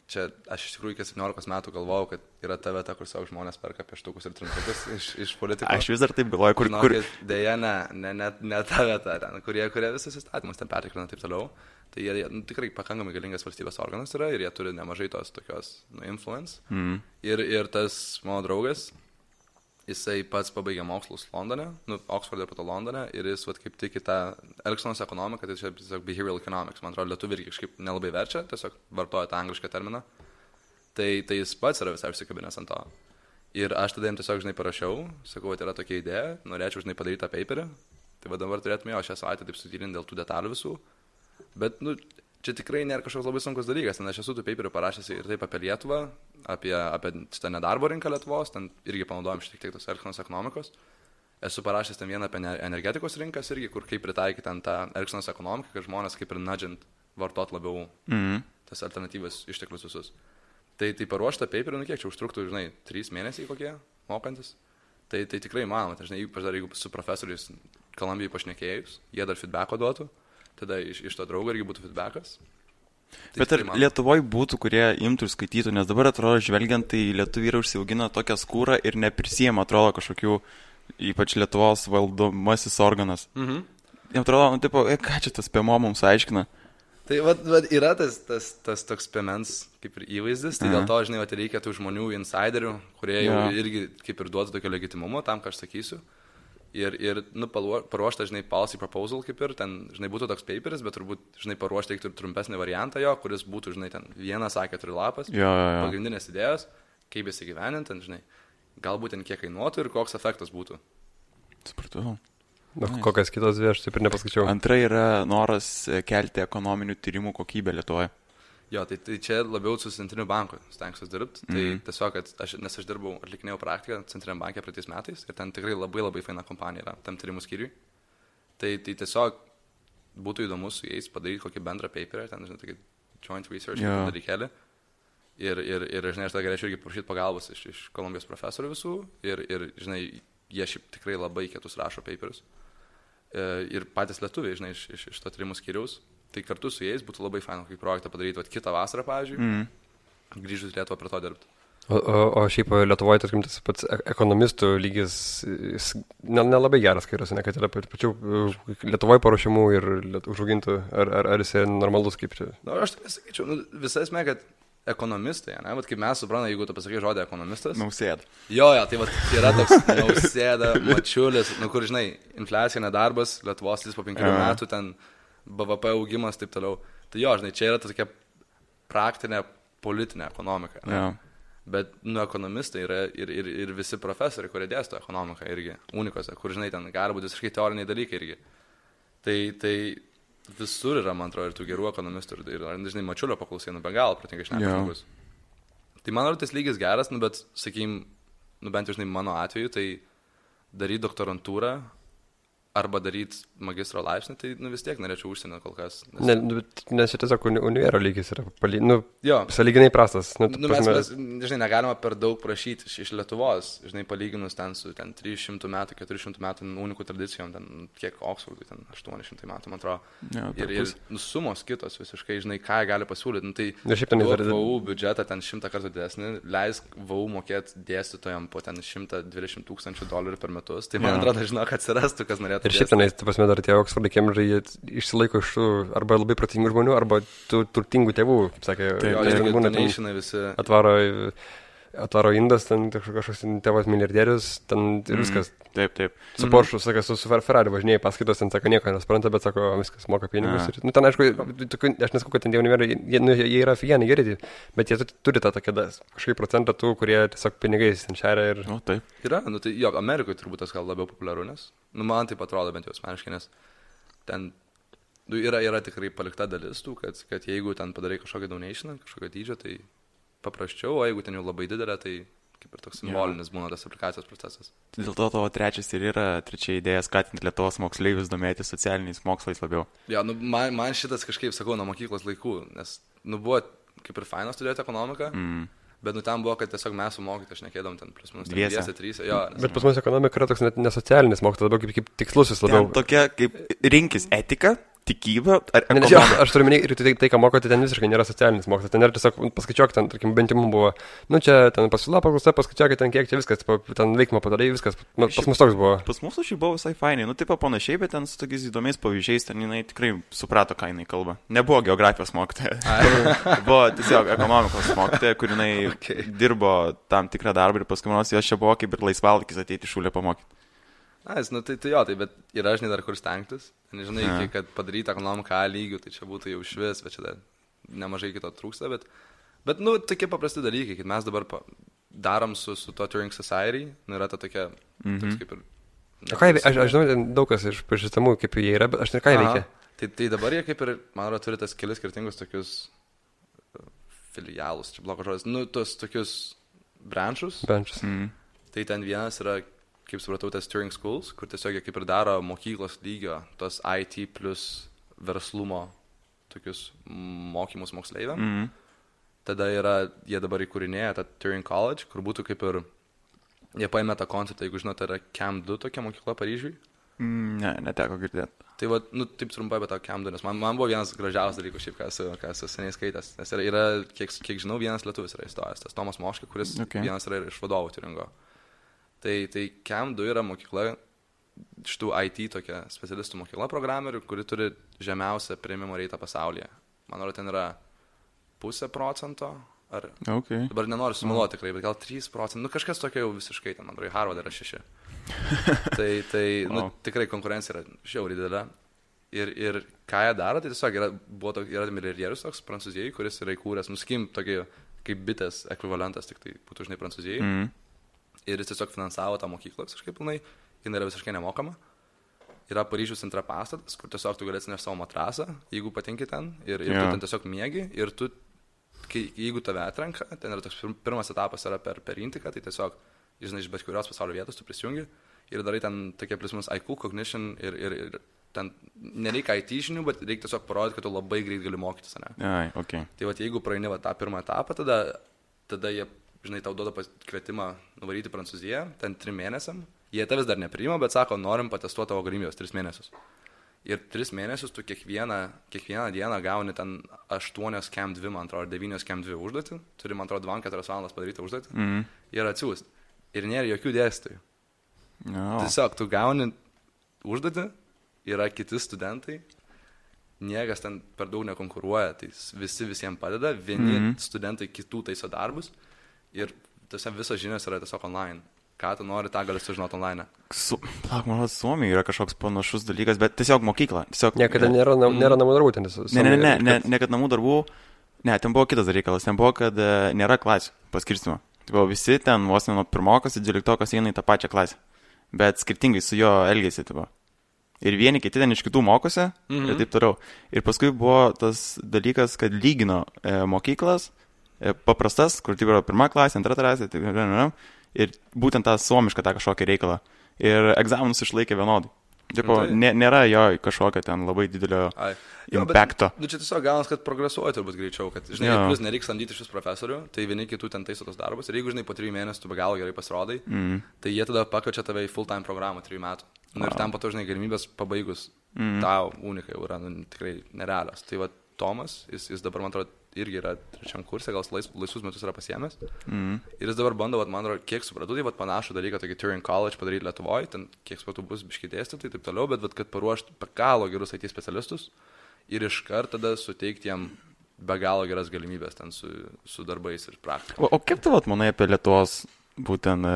čia aš iš tikrųjų iki 17 metų galvojau, kad yra ta vieta, kur savo žmonės perka pieštukus ir trintukus iš politikos. Aš vis dar taip galvoju, kur... Deja, ne ta vieta, ten, kurie visus įstatymus ten pertikrina taip toliau. Tai jie tikrai pakankamai galingas valstybės organas yra ir jie turi nemažai tos tokios influence. Ir tas mano draugas, jisai pats pabaigė mokslus Londone, Oxford ir po to Londone, ir jis kaip tik į tą elgsenos ekonomiką, tai čia tiesiog behavioral economics, man atrodo, lietuviai irgi kažkaip nelabai verčia, tiesiog vartoja tą anglišką terminą. Tai jis pats yra visai užsikabinęs ant to. Ir aš tada jam tiesiog, parašiau, sakau, kad yra tokia idėja, norėčiau, padaryti tą paperį, tai dabar turėtume jo šią savaitę taip sutyrinti dėl tų detalių visų, bet, čia tikrai nėra kažkoks labai sunkus dalykas, nes aš esu tų paperių parašęs ir taip apie Lietuvą, apie šitą nedarbo rinką Lietuvos, ten irgi panaudojom šiek tiek tos elgsenos ekonomikos. Esu parašęs ten vieną apie energetikos rinkas irgi, kur kaip pritaikyti ten tą elgsenos ekonomiką, kad žmonės kaip ir nudžint vartot labiau tas alternatyvas išteklius visus. Tai paruoštą paperį, kiek čia užtruktų, 3 mėnesiai kokie, mokantis. Tai tikrai manoma, ypač dar jeigu su profesoriais Kolumbijai pašnekėjus, jie dar feedbacko duotų. Tada iš to draugo irgi būtų feedbackas. Bet ar Lietuvoje būtų, kurie imtų ir skaitytų, nes dabar atrodo, žvelgiant, tai lietuviai yra užsiaugina tokią skūrą ir neprisijama, atrodo, kažkokių, ypač Lietuvos valdomasis organas. Jam atrodo, ką čia tas PMO mums aiškina? Tai yra tas toks PMens kaip ir įvaizdis, tai dėl to, reikia tų žmonių insiderių, kurie jau irgi kaip ir duotų tokio legitimumo tam, ką aš sakysiu. Ir paruošta, policy proposal kaip ir, ten, būtų toks paperis, bet turbūt, paruošta reiktų ir trumpesnį variantą jo, kuris būtų, ten 1-4 lapas, pagrindinės idėjos, kaip jis įgyvenint, ten, galbūt ten kiek kainuotų ir koks efektas būtų. Supratau. Kokias kitos dvi, aš taip ir nepaskaičiau. Antra yra noras kelti ekonominių tyrimų kokybę Lietuvoje. Jo, tai čia labiau su Centriniu banku stengsiuos dirbti. Tai tiesiog, nes aš dirbau, atlikinėjau praktiką Centriniam banke praeitais metais ir ten tikrai labai faina kompanija yra tam tyrimų skyriui. Tai tiesiog būtų įdomu su jais padaryti kokį bendrą paperį, ten, tokį joint research dalykėlį. Ir aš tada galėčiau irgi prašyti pagalbos iš Kolumbijos profesorių visų ir jie šiaip tikrai labai kietus rašo paperius. Ir patys lietuviai, iš to tyrimų skyriaus. Tai kartu su jais būtų labai faina, kaip projektą padaryti kitą vasarą, pavyzdžiui, grįžus Lietuvą prie to dirbti. O šiaip Lietuvoje, tarkim, tas pats ekonomistų lygis nelabai geras, kai yra, kad yra pačių Lietuvoje paruošimų ir užaugintų, ar jis normalus kaip čia? Aš taip nesakyčiau, visai esmė, kad ekonomistai, kaip mes suprantame, jeigu tu pasakai žodį ekonomistas. Nausėda. Jo, tai yra toks Nausėda, Mačiulis, kur, infliacija, nedarbas, Lietuvos lys po 5 metų, ten BVP augimas, taip toliau. Tai jo, čia yra tokia praktinė politinė ekonomika. Bet, ekonomistai yra ir visi profesoriai, kurie dėsto ekonomiką irgi, unikose, kur, ten gali būti visiškai teoriniai dalykai irgi. Tai visur yra, man atrodo, ir tų gerų ekonomistų, ir Mačiulio paklausai, be galo pratingai šneka žmogus. Tai man atrodo, tas lygis geras, bet, sakykim, bent jau, mano atveju, tai daryti doktorantūrą, arba daryti magistro laipsnį, tai vis tiek norėčiau užsienio kol kas. Nes čia tiesiog univero lygis yra sąlyginai prastas. Mes, negalima per daug prašyti iš Lietuvos, palyginus ten su 300 metų, 400 metų unikų tradicijom, ten kiek Oxfordui, ten 800 metų, man atrodo. Ir sumos kitos visiškai, ką gali pasiūlyti. Tai VU biudžetą ten 100 kartų didesnį, leisk VU mokėti dėstytojam po ten $120,000 per metus. Tai man atrodo, kad atsirastų, kas norėtų. Ir šiaip tenais, dar tie Oxfordai, Cambridge'ai, jie išsilaiko iš tų arba labai protingų žmonių, arba tų turtingų tėvų, kaip sakė. Atvaro indas, ten kažkoks tėvas milijardierius, ten ir viskas. Taip. Su Porsche, sakė, su Ferrari važinėjai paskaitos, ten sako, nieko nespranta, bet sako, viskas moka pinigus. Ir, ten, aišku, aš nesakau, kad ten tie univerai, jie yra figieniai geri, bet jie turi tą tokią kažkaip procentą tų, kurie tiesiog pinigais ten šeria ir... Taip. Yra, tai jo, Amerikoje turbūt tas gal labiau populiaru, nes, man taip atrodo bent jau asmeniškai, nes ten yra tikrai palikta dalis tų, kad jeigu ten padarai kažkokią donationą, kažkokią dydžią, tai paprasčiau, o jeigu ten jau labai didelė, tai kaip ir toks simbolinis būna tas aplikacijos procesas. Dėl to tavo trečia idėja skatinti Lietuvos moksleivius domėtis socialiniais mokslais labiau. Jo, man šitas kažkaip, sakau, nuo mokyklos laikų, nes, buvo kaip ir faina studijuoti ekonomiką, bet ten buvo, kad tiesiog mes su mokytojais šnekėdom ten plus minus 2-3. Bet pas mus ekonomika yra toks net nesocialinis mokslas, labiau kaip tikslusis labiau. Ten tokia kaip rinkis etika, tikybą ar ekonomiką. Aš turiu minėti, ir tai, ką mokote, ten visiškai nėra socialinis mokslas, ten yra tiesiog paskaičiuok, ten, tarkim, bent jau mums buvo, čia ten pasiūla, paklausa, paskaičiuok, ten kiek čia viskas, ten veikimo padarai, viskas, pas mus toks buvo. Pas mūsų šiaip buvo visai fainai, taip panašiai, bet ten su tokiais įdomiais pavyzdžiais, ten jinai tikrai suprato, ką jinai kalba. Nebuvo geografijos mokytoja, buvo tiesiog ekonomikos mokytoja, kur jinai dirbo tam tikrą darbą ir paskui manos jos čia buvo kaip ir laisvalakis ateiti šūlę pamokyti. Bet yra, žinai, dar kur stengtis. Nežinai, kad padaryti ekonomiką A lygių, tai čia būtų jau švis, bet čia dar nemažai kito trūksta, bet tokie paprasti dalykai, kad mes dabar darom su to Turing Society, yra ta tokia, toks kaip ir... Aš žinau, daug kas iš pažįstamų, kaip jie yra, bet aš ką jie veikia. Tai dabar jie kaip ir, man atrodo, turi tas kelis skirtingus tokius filialus, čia blogas žodis, tos tokius branchus. Tai ten vienas yra, kaip supratau, tas Turing Schools, kur tiesiog jie kaip ir daro mokyklos lygio, tos IT plus verslumo tokius mokymus moksleiviam. Tada jie dabar įkūrinėja tą Turing College, kur būtų kaip ir, jie paėmė tą konceptą, jeigu žinote, yra Camp 2 tokia mokykla Paryžiui. Ne, neteko girdėti. Tai taip trumpai apie tą Camp 2, nes man buvo vienas gražiausias dalykas, šiaip, ką esu seniai skaitęs, nes yra kiek žinau, vienas lietuvis yra įstojęs, tas Tomas Moška, kuris vienas yra iš vadovų Turingo. Tai Camp 2 yra mokykla, šitų IT tokia specialistų mokykla programerių, kuri turi žemiausią priėmimo reitą pasaulyje. Man atrodo, ten yra 0,5%, ar... Dabar nenoriu sumeluoti tikrai, bet gal 3%, kažkas tokio jau visiškai, ten, man atrodo, Harvard yra 6. Tikrai konkurencija yra žiauriai didelė. Ir ką jie daro, tai tiesiog yra milijardierius toks Prancūzijai, kuris yra įkūręs, nuskim tokį kaip bitės ekvivalentas, tik tai būtų, žinai, Prancūzijai. Ir jis tiesiog finansavo tą mokyklą visiškai pilnai, jinai yra visiškai nemokama. Yra Paryžiaus centre pastatas, kur tiesiog tu galėsi nešti savo matrasą, jeigu patinki ten, ir tu ten tiesiog miegi, ir tu, jeigu tave atrenka, ten yra toks pirmas etapas yra per Intiką, tai tiesiog, žinai, iš bet kurios pasaulio vietos tu prisijungi ir darai ten tokie plius IQ, cognition ir ten nereikia IT žinių, bet reikia tiesiog parodyti, kad tu labai greit gali mokytis, ne? Tai jeigu praeini tą pirmą etapą, tada jie, žinai, tau duoda kvietimą nuvaryti Prancūziją, ten 3 mėnesiam. Jie tavęs dar nepriima, bet sako, norim patestuoti tavo galimybės 3 mėnesius. Ir 3 mėnesius tu kiekvieną dieną gauni ten 8 Camp 2, man atrodo, 9 Camp 2 užduotį. Turi, man atrodo, 2-4 valandas padaryti užduotį. Ir atsiųsti. Ir nėra jokių dėstytojų. Tiesiog tu gauni užduotį, yra kiti studentai, niekas ten per daug nekonkuruoja, tai visi visiems padeda, vieni studentai kitų taiso darbus. Ir visos žinios yra tiesiog online. Ką tu nori, tą gali sužinoti online. Man Suomijoje yra kažkoks panašus dalykas, bet tiesiog mokykla. Niekada nėra namų darbų ten. Ne, kad namų darbų. Ne, ten buvo kitas dalykas. Ten buvo, kad nėra klasių paskirstimo. Visi ten vos nuo pirmokas ir 12 eina į tą pačią klasę. Bet skirtingai su jo elgėsi. Ir vieni kiti ten iš kitų mokosi ir taip toliau. Ir paskui buvo tas dalykas, kad lygino mokyklas. Paprastas, kur tai yra 1 klasė, 2 klasė, ir būtent tą suomišką tą kažkokį reikalą. Ir egzaminus išlaikė vienodai. Nėra jo kažkokio ten labai didelio impacto. Čia tiesiog gaunas, kad progresuoja turbūt greičiau, kad, žinai, plus nereikia samdyti šis profesorių, tai vieni kitų ten taiso tos darbus. Ir jeigu, žinai, po 3 mėnesių tu be galo gerai pasirodai, tai jie tada pakviečia tave į full-time programą 3 metų. Ir ten po to, žinai, galimybės pabaigus tau unikai yra tikrai nerealios. Tai Tomas, jis dabar, man atrodo, irgi yra 3 kurse, gal laisvus metus yra pasiėmęs. Ir jis dabar bando, man atrodo, kiek supratau, tai panašų dalyką, tokį Turing College padaryti Lietuvoje, ten kiek supratau bus biškai dėstyti, taip toliau, bet kad paruošti be galo gerus IT specialistus ir iškart tada suteikti jam be galo geras galimybės ten su darbais ir praktika. O kaip tu manai apie Lietuvos būtent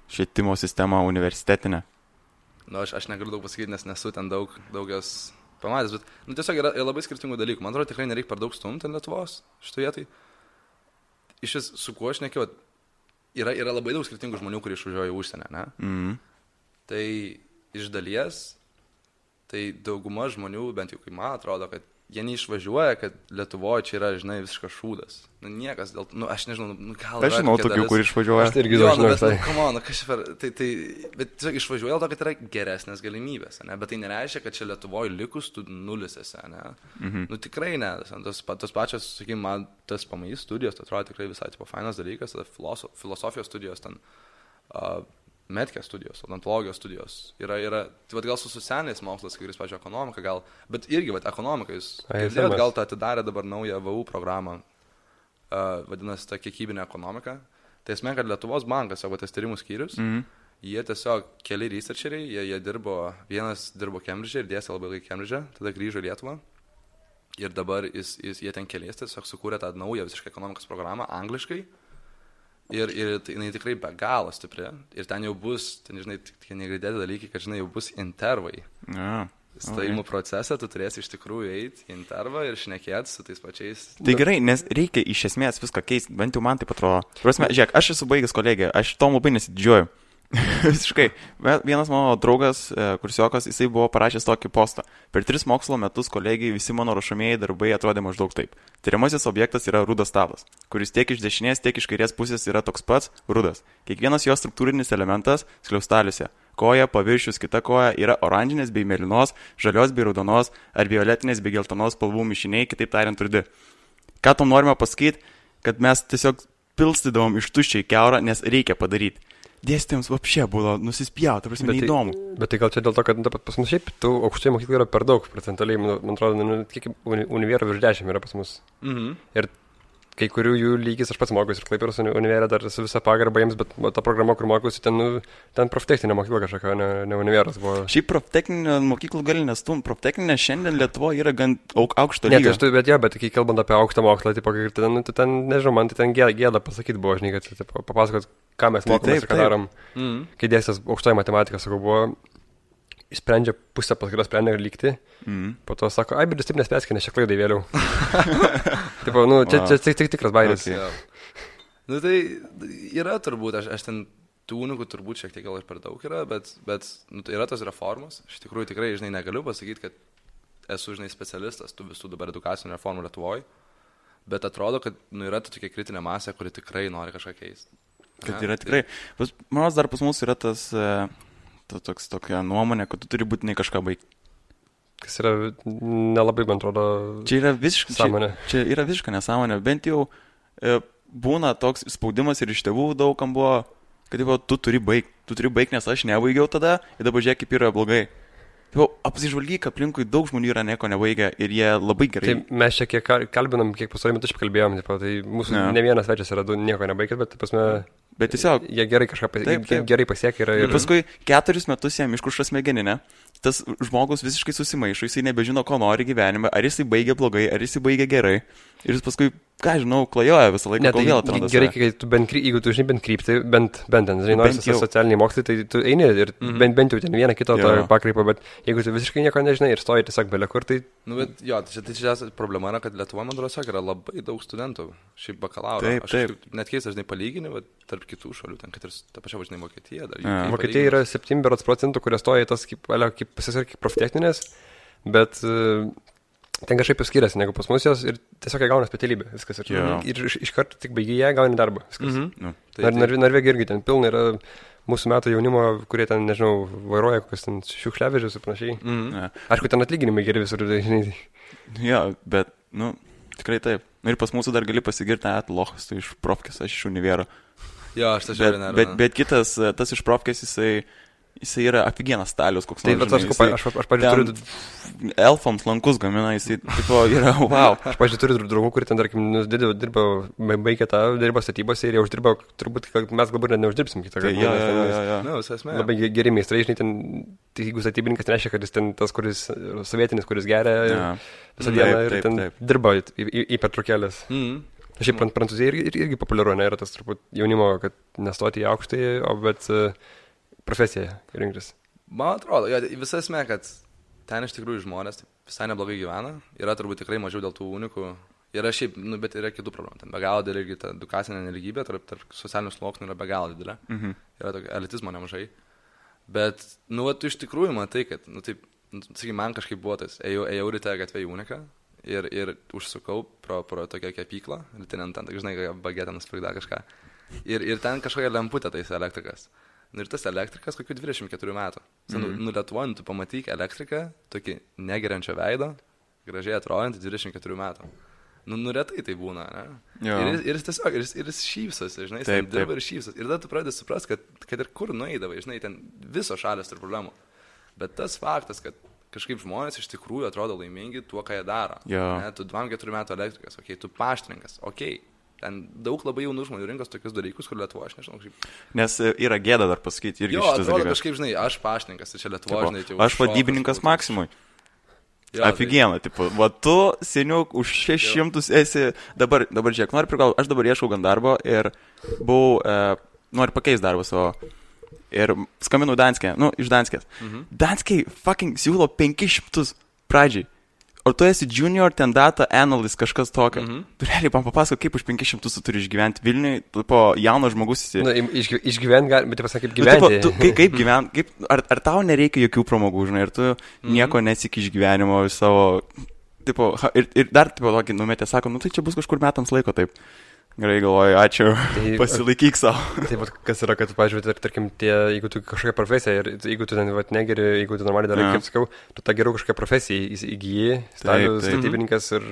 švietimo sistemą universitetinę? Aš negaliu daug pasakyti, nes nesu ten daug jos pamatęs, bet tiesiog yra labai skirtingų dalykų. Man atrodo, tikrai nereikia per daug stumti ant Lietuvos šitoje vietai. Iš su kuo aš nekiau, yra labai daug skirtingų žmonių, kurie išvažiuoja į užsienį, ne? Tai iš dalies, tai dauguma žmonių, bent jau kai man atrodo, kad jie neišvažiuoja, kad Lietuvoje čia yra, žinai, visiškas šūdas. Nu, niekas dėl... Nu, aš nežinau, gal... Aš žinau tokių, kur išvažiuoja. Aš tai irgi žinau, bet tiesiog išvažiuoja dėl to, kad yra geresnės galimybės, ne? Bet tai nereiškia, kad čia Lietuvoje likus tu nulisėse, ne? Nu, tikrai ne. Tos pačios, sakykime, man tas PMI studijos, tai atrodo tikrai visai tipo fainas dalykas, filosofijos studijos ten... Medkės studijos, odontologijos studijos. Yra, tai gal su socialiniais mokslas, kai kuris, pavyzdžiui, ekonomika gal, bet irgi, ekonomika, jūs girdėjot, gal tą atidarė dabar naują VU programą, vadinasi, ta kiekybinė ekonomika. Tai esmė, kad Lietuvos bankas, savo tas tyrimų skyrius, jie tiesiog keli researcheriai, jie dirbo, vienas dirbo Cambridge ir dėstė labai ilgai Cambridge, tada grįžo į Lietuvą. Ir dabar jie ten keliais tiesiog sukūrė tą naują visiškai ekonomikos programą angliškai. Ir jinai tikrai be galo stipri. Ir ten jau bus, žinai, tik negirdėti dalykai, kad, žinai, jau bus intervai. Stojimų procesą tu turėsi iš tikrųjų eiti į intervą ir šnekėti su tais pačiais. Tai gerai, nes reikia iš esmės viską keisti, bent jau man taip atrodo. Prasme, žiūrėk, aš esu baigęs kolegiją, aš tom labai nesididžiuoju. Visiškai. Vienas mano draugas, kursiokas, jisai buvo parašęs tokį postą. Per 3 mokslo metus kolegijai visi mano rašomieji darbai atrodė maždaug taip. Tyriamasis objektas yra rudas stabas, kuris tiek iš dešinės, tiek iš kairės pusės yra toks pats rudas. Kiekvienas jo struktūrinis elementas skliaustaliuose. Koja, paviršius, kita koja yra oranžinės bei mėlynos, žalios bei raudonos ar violetinės bei geltonos spalvų mišiniai, kitaip tariant rudi. Ką tom norime pasakyti, kad mes tiesiog pilstydavom iš tuščiai keurą, nes reikia padaryti. Dėstytojams vapšė buvo nusispjauti, prasme, neįdomu. Bet tai gal čia dėl to, kad pas mus šiaip tų aukštojų mokyklų yra per daug procentaliai, man atrodo, kiek univerų virš 10 yra pas mus. Ir kai kurių jų lygis, aš pats mokiausi ir Klaipėdos univerė dar su visa pagarba jiems, bet ta programa, kur mokiausi, ten proftechninė mokykla kažkokia, ne univeras buvo. Šiaip proftechninė mokyklų gali nestum, proftechninė šiandien Lietuvoje yra gan aukšto lygio. Bet kai kalbant apie aukštą mokslą, ten, nežinau, man tai ten gėda pasakyti buvo, žinai, kad papasakot, ką mes mokomės ir ką darom. Kai dėstęs aukštoji matematika, sakau, buvo, sprendžia pusę paskaitos sprendė lygti, po to sako, bet jūs taip nespėskite, nes čia klaidai vėliau. Tipo, čia tikras bairis. Nu tai yra turbūt, aš ten tų unikų turbūt šiek tiek gal ir per daug yra, bet tai yra tos reformos. Aš tikrųjų tikrai, žinai, negaliu pasakyti, kad esu, žinai, specialistas tų visų dabar edukacinių reformų Lietuvoje, bet atrodo, kad yra tokia kritinė masė, kuri tikrai nori kažką keisti. Kad yra tikrai. Manos dar pas mus yra tokia nuomonė, kad tu turi būtinai kažką baigti. Kas yra nelabai, man atrodo, čia yra visiškai nesąmonė. Čia yra visiškai nesąmonė. Bent jau būna toks spaudimas ir iš tėvų daugam buvo, kad tu turi baigti, nes aš nebaigiau tada ir dabar žiūrėk, kaip yra blogai. Apsižvalgyk, aplinkui daug žmonių yra nieko nebaigę ir jie labai gerai. Tai mes čia kiek kalbinam, kiek pasarį metų kalbėjom, tai mūsų ne vienas svečias yra nieko nebaigęs, bet pasme, bet tiesiog jie gerai kažką gerai pasiekė. Ir paskui 4 metus jam iškuša smegeninę, tas žmogus visiškai susimaišo, jisai nebežino, ko nori gyvenime, ar jisai baigia blogai, ar jisai baigia gerai. Ir jis paskui, ką žinau, klajoja visą laiką, kol vėl atranda. Gerai, kai tu jeigu tu žinai bent kryptį, bent ten, žinai, nors socialiniai mokslai, tai tu eini ir bent jau ten vieną kitą pakreipą, bet jeigu tu visiškai nieko nežinai ir stoji tiesiog belia kur, tai... Nu, bet jo, tai čia problema yra, kad Lietuvoje, man atrodo, yra labai daug studentų, šiaip bakalauro. Aš net keista, žinai, palygini, bet tarp kitų šalių, ten, kad ir ta pačia, žinai, Vokietija. Vokietija yra 7%, kurie stoja tas kaip proftechninės, bet ten kažkaip skiriasi negu pas mus jos ir tiesiog jie gauna specialybę, viskas. Ir iš karto tik baigėje gauni darbą, viskas. Norvegija irgi ten pilna yra mūsų metų jaunimo, kurie ten, nežinau, vairuoja kokius ten šiukšliavežius ir panašiai. Aišku, ten atlyginimai geri visur, žinai. Jo, bet, tikrai taip. Ir pas mūsų dar gali pasigirti, lochas, tu iš profkės, aš iš univero. Jo, aš tą žiūrėjau, ne. Bet kitas, tas iš profkės, jisai yra aфиgenas stalius, koks nors. Aš pažiūrėjau, turiu... Elfams lankus gamina, jisai tipo yra, wow. Aš pažiūrėjau, turiu draugų, kurie ten, tarkim, baigė tą, dirbo statybose ir jie uždirbo, turbūt, kad mes galbūt net neuždirbsim kitą kartą. Labai geri meistrai, žinai, ten, jeigu statybininkas nereiškia, kad jis ten tas, kuris sovietinis, kuris geria visą dieną ir ten dirba į pertraukėlės. Šiaip Prancūzija irgi populiaru, ne, yra tas turbūt jaunimo, kad nestoti į aukštąjį, bet profesiją rinktis. Man atrodo, visa esmė, kad ten iš tikrųjų žmonės visai neblogai gyvena, yra turbūt tikrai mažiau dėl tų unikų, yra šiaip, bet yra kitų problemų, ten be galo didelė irgi ta edukacinė nelygybė, tarp socialinių sluoksnių yra be galo didelė, yra tokio elitizmo nemažai, bet, tu iš tikrųjų matai, kad, taip, sakykim, man kažkaip buvo tas, ėjau ryte gatvė į uniką ir užsukau pro tokią kepyklą, ir ten, žinai, bagetę nusprigda kažką. Ir ten kažkokia lemputė tais elektrikas. Ir tas elektrikas kokių 24 metų. Lietuvoje, tu pamatyk elektriką, tokį negeriančio veido, gražiai atrodantį 24 metų. Retai tai būna, ne? Ir jis tiesiog, ir jis šypsosi, žinai, jis ten dirba ir šypsosi. Ir tada tu pradedi suprasti, kad ir kur nueidavai, žinai, ten visos šalės turi problemų. Bet tas faktas, kad kažkaip žmonės iš tikrųjų atrodo laimingi tuo, ką jie daro. Ne? Tu 24 metų elektrikas, tu paštininkas, ten daug labai jaunų žmonių rinkos tokius dalykus, kur Lietuvo, aš nežinau, kaip... Nes yra gėda dar pasakyti irgi šitas dalykas. Jo, atrodo kažkaip, žinai, aš paštininkas, tai čia Lietuvo, žinai, tai aš vadybininkas Maksimui. Aфиgiena, tipo, va tu, seniuk, už 600 esi, dabar žiūrėk, noriu prigalvoti, aš dabar ieškau gan darbo ir buvau, noriu pakeisti darbą savo. Ir skambinau Danskė, iš Danskės. Danskė fucking siūlo 500 pradžiai. O tu esi junior ten data analyst, kažkas tokio. Tu realiai man papasako, kaip už 500 tu turi išgyventi Vilniui, po jauno žmogus esi. Išgyventi gali, bet pasakė, kaip gyventi. Kaip gyventi, ar tau nereikia jokių pramogų, žinai, ir tu nieko nesiki iš gyvenimo savo, tipo, ir dar, tipo, tokį numetė, sako, tai čia bus kažkur metams laiko, taip. Gerai galvoju, ačiū, pasilaikyk savo. Taip, kas yra, kad, pavyzdžiui, tarkim, jeigu tu kažkokią profesiją ir jeigu tu ten negeri, jeigu tu normaliai darai, kaip sakiau, tu tą geriau kažkokią profesiją įgyji, statybininkas ir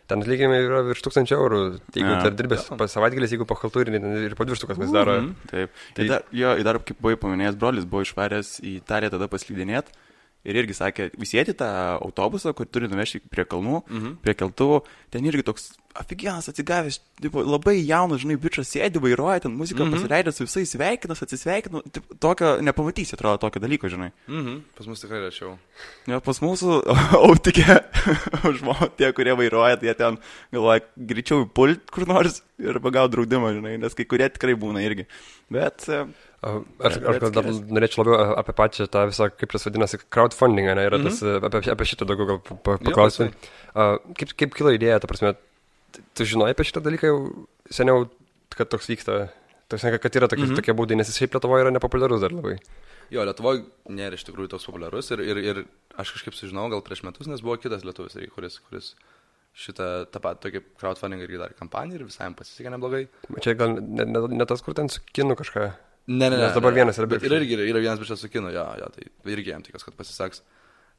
ten atlyginimai yra virš 1000 eurų. Jeigu dar dirbės savaitgalis, jeigu po haltūrinį ir po 200 kas daro. Taip. Dar kaip buvai paminėjęs, brolis buvo išvaręs į Italiją tada paslydinėti. Ir irgi sakė, visėti tą autobusą, kur turi nuvežti prie kalnų, prie keltuvų, ten irgi toks aфиgenas atsigavęs, labai jaunas, žinai, bičas sėdi, vairuoja, ten muziką pasileidė su visais sveikinas, atsisveikino, tokio nepamatysi, atrodo, tokio dalyko, žinai. Pas mus tikrai rečiau. Ja, pas mūsų autikė žmonės, tie, kurie vairuoja, tai jie ten galvoja, greičiau pult kur nors ir pagauti draudimą, žinai, nes kai kurie tikrai būna irgi. Bet... Aš dar norėčiau labiau apie pačią tą visą, kaip tas vadinasi, crowdfunding, ne, yra tas, apie šitą daugiau gal paklausti. Kaip kilo idėja, ta prasme, tu žinojai apie šitą dalyką jau seniau, kad toks vyksta, kad yra tokie būdai, nes jis šiaip Lietuvoje yra nepopuliarus dar labai. Jo, Lietuvoje nėra iš tikrųjų toks populiarus ir aš kažkaip sužinau gal prieš metus, nes buvo kitas lietuvis, kuris šitą tą patį tokį crowdfunding irgi darė kampaniją ir visai jam pasisekė neblogai. Čia gal ne tas, kur ten su kinu kažką. Ne. Nes dabar vienas yra bičias. Ir irgi yra vienas bičias su kinu, jo, tai irgi jam tikas, kad pasiseks.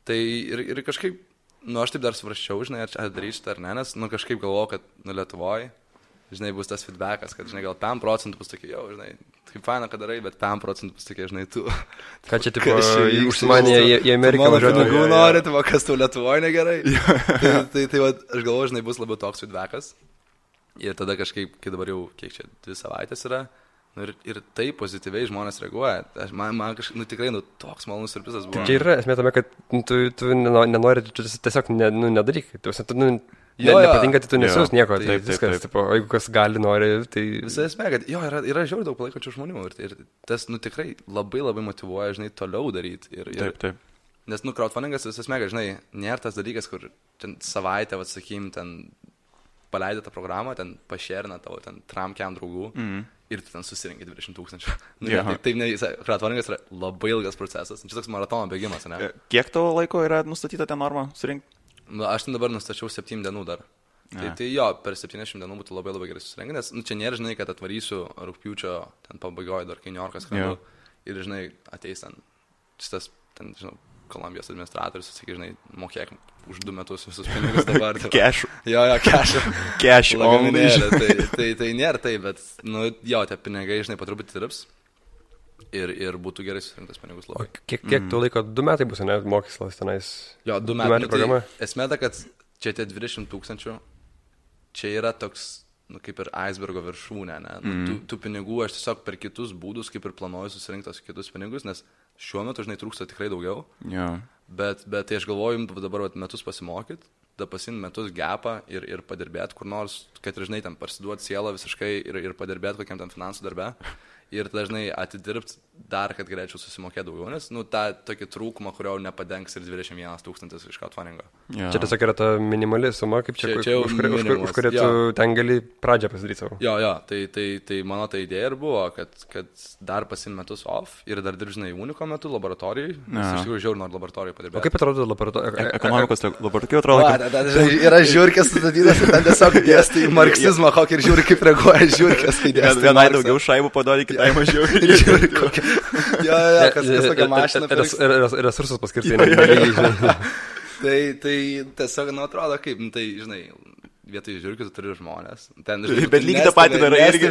Tai ir kažkaip, aš taip dar svarsčiau, žinai, ar darysiu šitą ar ne, nes, kažkaip galvoju, kad, Lietuvoje, žinai, bus tas feedbackas, kad, žinai, gal 5% bus tokie, jau, žinai, kaip faina, kad darai, bet 5% bus tokie, žinai, tu. Ką čia, tipo, užsimanė į Ameriką važiuoti? Mano pinigų nori, tai kas tau Lietuvoje negerai. Tai aš galvoju, žinai, bus labiau toks feedbackas. Ir tada kažkaip, kai dabar jau, kiek čia, 2 savaitės yra, ir tai pozityviai žmonės reaguoja. Man kažkaip, tikrai, toks malonus siurprizas buvo. Čia yra esmė tame, kad tu nenori, tiesiog nedaryk. Nepatinka, tai tu nesiūs nieko. Tai viskas, tipo, jeigu kas gali, nori, tai... Visa esmė, kad jo, yra žiauriai daug palaikančių žmonių. Ir tas, tikrai labai labai motyvuoja, žinai, toliau daryti. Taip. Nes, crowdfundingas visas esmė, kad, žinai, nėra tas dalykas, kur ten savaitę, sakykim, ten paleidė tą programą, ten pašerina tavo, ten tramkiam draugų. Ir tu ten susirinkai 20 000. Taip, crowdfundingas yra labai ilgas procesas. Čia toks maratono bėgimas, ne? Kiek tavo laiko yra nustatyta ten norma surinkti? Aš ten dabar nustačiau 7 dienų dar. Tai jo, per 70 dienų būtų labai labai gerai susirinkti, nes čia nėra, žinai, kad atvarysiu rugpjūčio ten pabaigoje dar kai New Yorkas skrendu ir, žinai, ateis ten šitas, ten, žinau, Kolumbijos administratorius, sakai, žinai, mokėk už 2 metus visus pinigus dabar. Cash. Jo, cash. Cash only. Tai nėra tai, bet, jo, tie pinigai, žinai, patruputį tirps ir būtų gerai susirinktas pinigus labai. Kiek tu laiko, 2 metai bus, ne, mokyslas tenais? Jo, 2 metai programa. Esmė ta, kad čia tie 20 000, čia yra toks, kaip ir icebergo viršūnė, ne? Tų pinigų aš tiesiog per kitus būdus, kaip ir planuoju susirinkti tos kitus pinigus, nes šiuo metu, žinai, trūksta tikrai daugiau. Bet tai aš galvoju, dabar metus pasimokyti, tada pasiimti metus gapą ir padirbėti kur nors, kad, žinai, ten parsiduoti sielą visiškai ir padirbėti kokiam ten finansų darbe. ir dažnai atidirbti dar, kad galėčiau susimokėti daugiau, nes, nu, tą tokį trūkumą, kurio nepadengs ir 21 000 iš crowdfundingo. Ja. Čia tiesiog yra ta minimali suma, kaip čia už kurią tu ten gali pradžią pasidaryti savo. Jo, tai mano ta idėja ir buvo, kad dar pasim metus off ir dar dirbžinai Uniko metu laboratorijai, nes iš tikrųjų žiauriai noriu laboratorijai padirbėti. O kaip atrodo laboratorija? Ekonomikos laboratorija atrodo. Yra žiūrkės sudatytas ir ten tiesiog dėstai marksizmą, kokį ir žiūri, kaip reaguoja žiūrkės, kai dėstai. Vienai daugiau šaibų padori, kitai mažiau. Jo, kas tokia mašina. Resursus paskirti. Tai tiesiog, nu, atrodo kaip, tai, žinai, vietoj žiūrkių tu turi žmonės. Ten, žinai, bet lygiai tą patį darai irgi.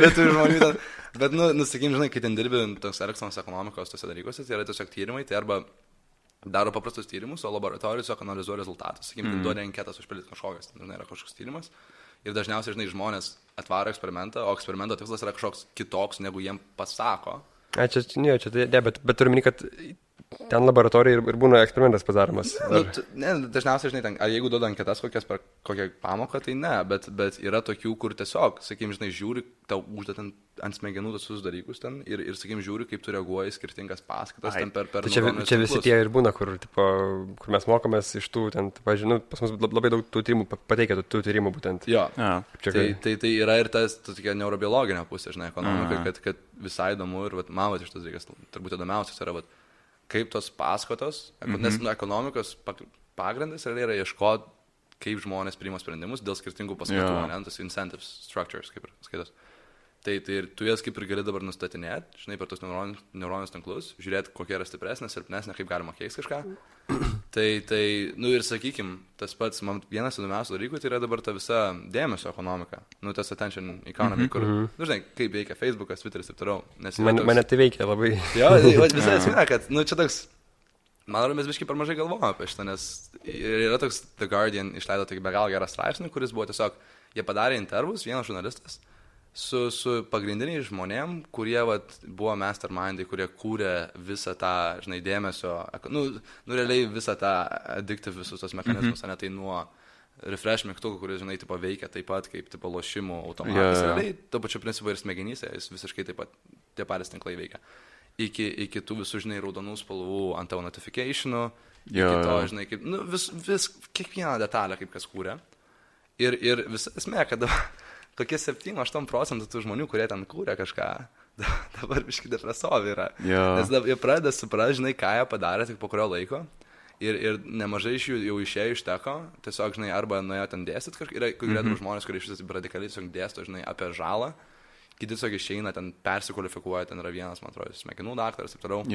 Bet, nu, sakykim, žinai, kai ten dirbi toks elektroninės ekonomikos tose dalykuose, tai yra tiesiog tyrimai, tai arba daro paprastus tyrimus, o laboratorijos tiesiog analizuoja rezultatus. Sakykim, duoda anketas užpildyti kažkokias, žinai, yra kažkoks tyrimas. Ir dažniausiai, žinai, žmonės atvaro eksperimentą, o eksperimento tikslas yra kažkoks kitoks, negu jiem pasako. Bet turiu minį, kad ten laboratorija ir būna eksperimentas padaromas. Dažniausiai, žinai, ten, ar jeigu duoda anketas kokias per kokią pamoką, tai ne, bet yra tokių, kur tiesiog, sakykim, žinai, žiūri, tau uždeda ant smegenų visus dalykus ten ir sakykim, žiūri, kaip tu reaguoji skirtingas paskaitas ten per čia visi tie ir būna, kur mes mokomės iš tų, ten, pavyzdžiui, pas mus labai daug tų tyrimų pateikia, tų tyrimų būtent. Jo, tai yra ir tas tokia neurobiologinė pusė, žinai, ekonomika, kad visai įdomu ir man iš tas dalykas, turbūt įdomiausias yra, kaip tos paskatos, nes ekonomikos pagrindas yra ieškoti, kaip žmonės priima sprendimus dėl skirtingų paskatų, tas incentives structures, kaip ir skaitos. Tai ir tu jas kaip ir gali dabar nustatinėti, žinai, per tos neuroninius tinklus, žiūrėti, kokia yra stipresnė, silpnesnė, kaip galima keisti kažką. Tai, nu ir sakykim, tas pats, man vienas įdomiausių dalykų, tai yra dabar ta visa dėmesio ekonomika, nu tas attention economy, kur, nu žinai, kaip veikia Facebookas, Twitteris ir toliau. Mane tai veikia labai. Jo, visai esmė, kad, nu čia toks, man atrodo, mes biškai per mažai galvojame apie šitą, nes yra toks The Guardian išleido tokį be galo gerą straipsnį, kuris buvo tiesiog, jie padarė intervus, vienas žurnalistas, su pagrindiniais žmonėm, kurie buvo mastermindai, kurie kūrė visą tą, žinai, dėmesio, nu realiai visą tą addictive visus tos mechanizmus, ne tai nuo refresh mygtukų, kuris, žinai, tipo veikia taip pat kaip tipo lošimų automatas, realiai to pačiu principu ir smegenyse, jis visiškai taip pat tie patys tinklai veikia. Iki tų visų, žinai, raudonų spalvų ant tavo notificationų, iki to, žinai, kaip, nu vis kiekvieną detalę, kaip kas kūrė. Ir visa esmė, kad tokie 7-8% tų žmonių, kurie ten kūrė kažką, dabar biškai depresuovi yra. Nes jie pradeda suprasti, žinai, ką jie padarė tik po kurio laiko. Ir nemažai iš jų jau išėjo iš teko, tiesiog, žinai, arba nuėjo ten dėstyt kažką. Yra kurie žmonės, kurie iš vis radikaliai tiesiog dėsto, žinai, apie žalą. Kiti tiesiog išeina, ten persikvalifikuoja, ten yra vienas, man atrodo, smegenų daktaras ir taip toliau.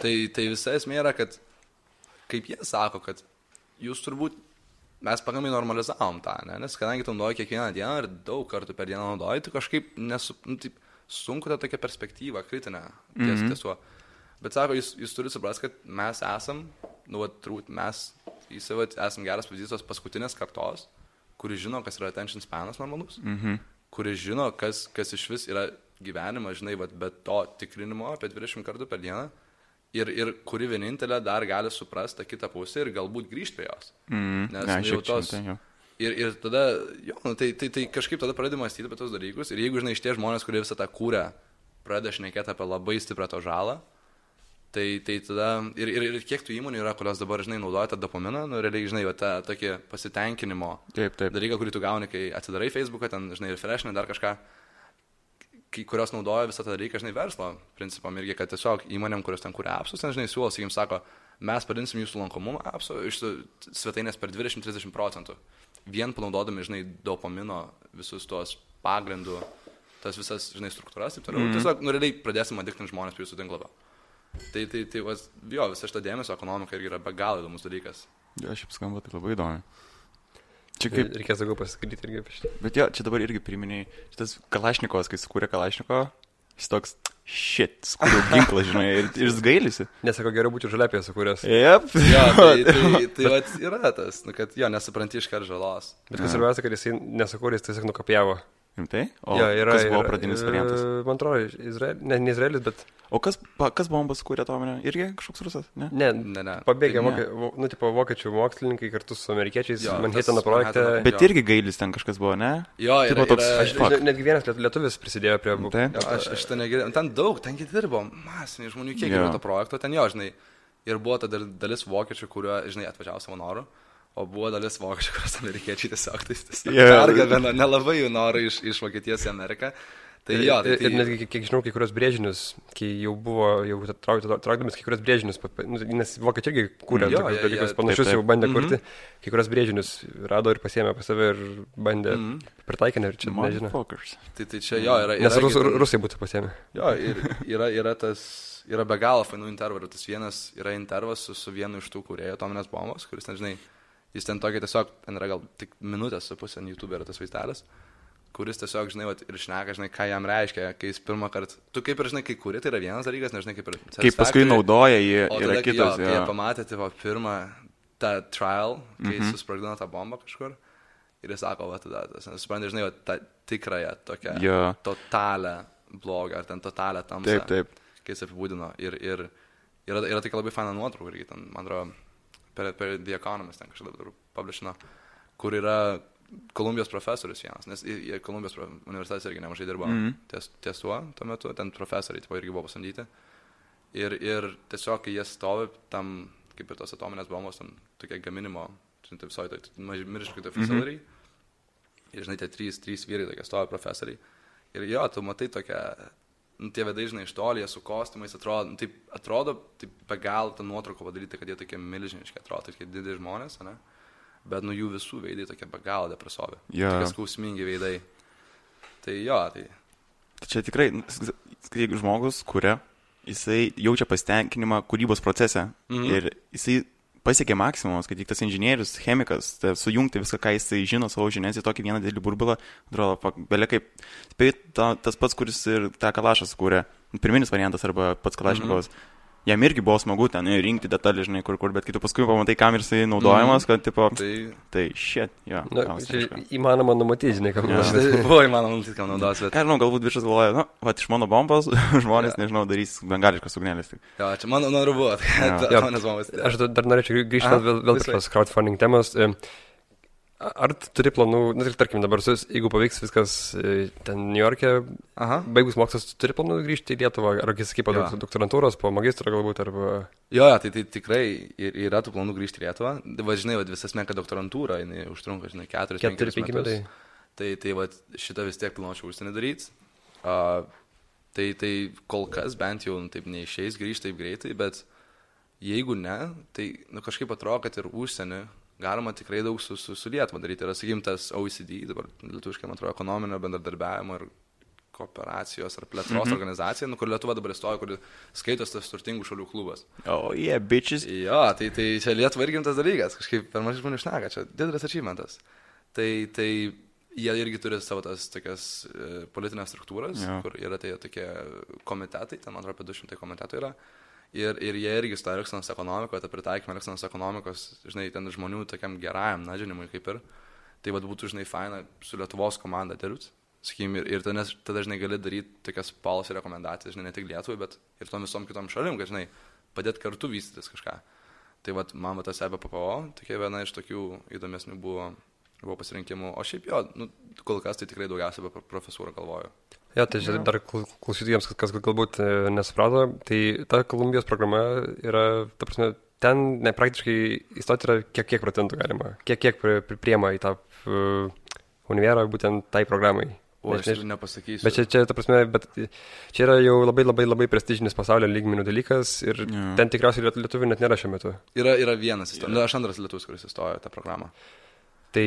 Tai visa esmė yra, kad, kaip jie sako, kad jūs turbūt mes pakankamai normalizavom tą, ne? Nes kadangi tu naudoji kiekvieną dieną ir daug kartų per dieną naudoji, tu kažkaip taip, sunku tą tokią perspektyvą, kritinę tiesuo. Bet sako, jūs turite suprasti, kad mes esam, turbūt mes esam geras pavyzdys tos paskutinės kartos, kuri žino, kas yra attention spanas normalus, kuri žino, kas iš vis yra gyvenimas, žinai, be to tikrinimo apie 20 kartų per dieną. Ir kuri vienintelė dar gali suprasti tą kitą pusę ir galbūt grįžti prie jos. Nes jau tos... Ir tada, tai kažkaip tada pradedi mąstyti apie tos dalykus. Ir jeigu, žinai, iš tie žmonės, kurie visą tą kūrę, pradeda šnekėti apie labai stiprią to žalą, tai tada... Ir kiek tų įmonių yra, kurios dabar, žinai, naudoja tą dopaminą, nu, realiai, žinai, tą tokį pasitenkinimo dalyką, kurį tu gauni, kai atsidarai Facebooką, ten, žinai, refreshinai dar kažką, kurios naudoja visą tą dalyką, žinai, verslo principam irgi, kad tiesiog įmonėm, kurios ten kuria appsus, ten, žinai, siūlo, sakykim, sako, mes padinsim jūsų lankomumą appsų iš svetainės per 20-30%. Vien panaudodami, žinai, dopamino visus tuos pagrindų, tas visas, žinai, struktūras, taip toliau. Tiesiog, nu, realiai pradėsim adiktinti žmonės prie jūsų tinklapio. Tai visa šita dėmesio ekonomika irgi yra be galo įdomus dalykas. Jo, šiaip skamba tai labai įdomi. Čia kaip... Reikės daugiau pasiskaityti irgi apie šitą. Bet jo, čia dabar irgi priminėjai, šitas Kalašnikovas, kai sukūrė Kalašnikovą, jis toks, sukūrė ginklą, žinai, ir jis gailisi. Nesako, geriau būti žaliapėje sukūręs. Jep. Jo, tai yra tas, kad jo, nesupranti iškart žalos. Bet kas svarbiausia, kad jisai nesukūrė, jis tiesiog nukopijavo. Rimtai? O Jo, yra, kas buvo pradinis variantas? Man atrodo, ne Izraelis, bet... O kas bombas kūrė atominę? Irgi kažkoks rusas, ne? Ne. Pabėgė vokiečių mokslininkai kartu su amerikiečiais Manhattano projekte. Bet irgi Gailis ten kažkas buvo, ne? Jo, netgi vienas lietuvis prisidėjo prie... Aš ten negirdėjau. Ten daug, ten dirbo masiniai žmonių kiek yra to projekto. Ten jo, žinai, ir buvo ta dalis vokiečių, kurio, žinai, atvažiavo savo norų. O buvo dalis vokiečių, kurios amerikiečiai tiesiog pergabeno nelabai jų norų iš Vokietijos į Ameriką. Tai jo, ir netgi, kiek žinau, kai kurios brėžinius, kai jau traukdamis kai kurios brėžinius, nes vokiečiai irgi kūrė dalykus panašius, jau bandė kurti, kai kurios brėžinius rado ir pasiėmė pas save ir bandė pritaikinę ir čia nežinau. Tai čia jo yra... Nes rusai būtų pasiėmė. Jo, ir yra be galo fainų intervų. Tas vienas yra intervas su vienu iš tų kūrėjų atominės bombos, kuris, nežinai, jis ten tokia tiesiog, ten yra gal tik minutės su pusė, YouTube yra tas vaizdelis, kuris tiesiog, žinai, ir šneka, žinai, ką jam reiškia, kai jis pirmą kartą, tu kaip ir, žinai, kai kuri, tai yra vienas dalykas, nežinai, kaip ir... Kaip paskui naudoja jį, yra kitas. Kai jie pamatė, tai pirmą tą trial, kai jis susprogdino tą bombą kažkur, ir jis sako, va, tada, suprantate, žinai, tą tikrąją, tokią totalę blogą, ar ten totalę tamsą, kai jis apibūdino. Ir yra tokia labai faina nuotrauka, irgi ten, man atrodo, per The Economist ten kažkada publishino, kur yra Kolumbijos profesorius vienas, nes Kolumbijos universitetas irgi nemažai dirbo ties tuo metu, ten profesoriai irgi buvo pasamdyti. Ir tiesiog, kai jie stovi tam, kaip ir tos atominės bombos, tam tokie gaminimo, visoje tai milžiniškai tai facility, ir žinai, tie trys vyrai tokie stovi profesoriai. Ir jo, tu matai tokią, tie vedai, žinai, iš toli, jie su kostiumais atrodo, be gal tą nuotrauką padaryti, kad jie tokie milžiniški atrodo, tokie dideli žmonės, ne? Bet jų visų veidai tokie be galo depresuovi. Tokie skausmingi veidai. Tai jo, tai... Čia tikrai, kai žmogus kuria, jisai jaučia pasitenkinimą kūrybos procese. Ir jisai pasiekė maksimumas, kad tik tas inžinierius, chemikas, sujungti viską, ką jisai žino savo žinias į tokį vieną didelį burbulą, atrodo, belia kaip... Tas pats, kuris ir tą Kalašą sukūrė, pirminis variantas arba pats Kalašnikovas. Jam irgi buvo smagu ten rinkti detalį, žinai, kur, bet kai tu paskui pamatai, kam ir jisai naudojamas, kad, tipo, tai shit, jo. Įmanoma numatyti, žinai, kam naudos. Tai buvo įmanoma numatyti, kam naudos, bet... Ką žinau, galbūt viršas galvoja, iš mano bombos žmonės, nežinau, darys bengališkas ugnelės. Jo, čia mano noru buvo, atominės bombos. Aš dar norėčiau grįžti vėl prie tos crowdfunding temos. Ar turi planų, tarkim dabar, jeigu pavyks viskas ten New York'e, baigus mokslas, turi planų grįžti į Lietuvą, ar sakai, po doktorantūros, po magistro galbūt, arba... Jo, tai tikrai yra tų planų grįžti į Lietuvą. Žinai, visas menka doktorantūra, jinai užtrunka, žinai, 4-5 metus. Tai šitą vis tiek planuočiau užsienį daryti. Tai kol kas bent jau taip neišeis grįžti taip greitai, bet jeigu ne, tai kažkaip atrodo, kad ir užsienį galima tikrai daug su Lietuva daryti. Yra, sakykim, tas OECD, dabar lietuviškai, man atrodo, ekonominio bendradarbiavimo ir kooperacijos ar plėtros organizacija, kur Lietuva dabar įstojo, kur skaitos tas turtingų šalių klubas. Oh, yeah, bitches. Jo, tai čia Lietuva irgi tas dalykas, kažkaip per mažai žmonių šneka, čia didelis achievementas. Tai jie irgi turi savo tas tokias politinės struktūras, kur yra tai tokie komitetai, ten, man atrodo, apie 200 komitetų yra. Ir jie irgi stoja Elksenos ekonomikoje, tą pritaikymą Elksenos ekonomikos, žinai, ten žmonių tokiam gerajam nadžinimui kaip ir. Tai būtų, žinai, faina su Lietuvos komanda dirbti, sakykim, ir tada, žinai, gali daryti tokias policy rekomendacijas, žinai, ne tik Lietuvai, bet ir tom visom kitom šalim, kad, žinai, padėti kartu vystytis kažką. Tai man tas EBPO, tokia viena iš tokių įdomesnių buvo pasirinkimų. O šiaip jo, kol kas tai tikrai daugiausiai apie profesūrą galvoju. Ja, tai dar klausytojams, kas galbūt nesuprato, tai ta Kolumbijos programa yra, ta prasme, ten praktiškai įstoti yra kiek procentų galima, kiek priema į tą univerą būtent tai programai. O aš nepasakysiu. Bet čia, ta prasme, čia yra jau labai prestižinis pasaulio lygmenių dalykas ir ten tikriausiai lietuvių net nėra šiuo metu. Yra vienas įstojo, aš antras lietuvis, kuris įstojo tą programą. Tai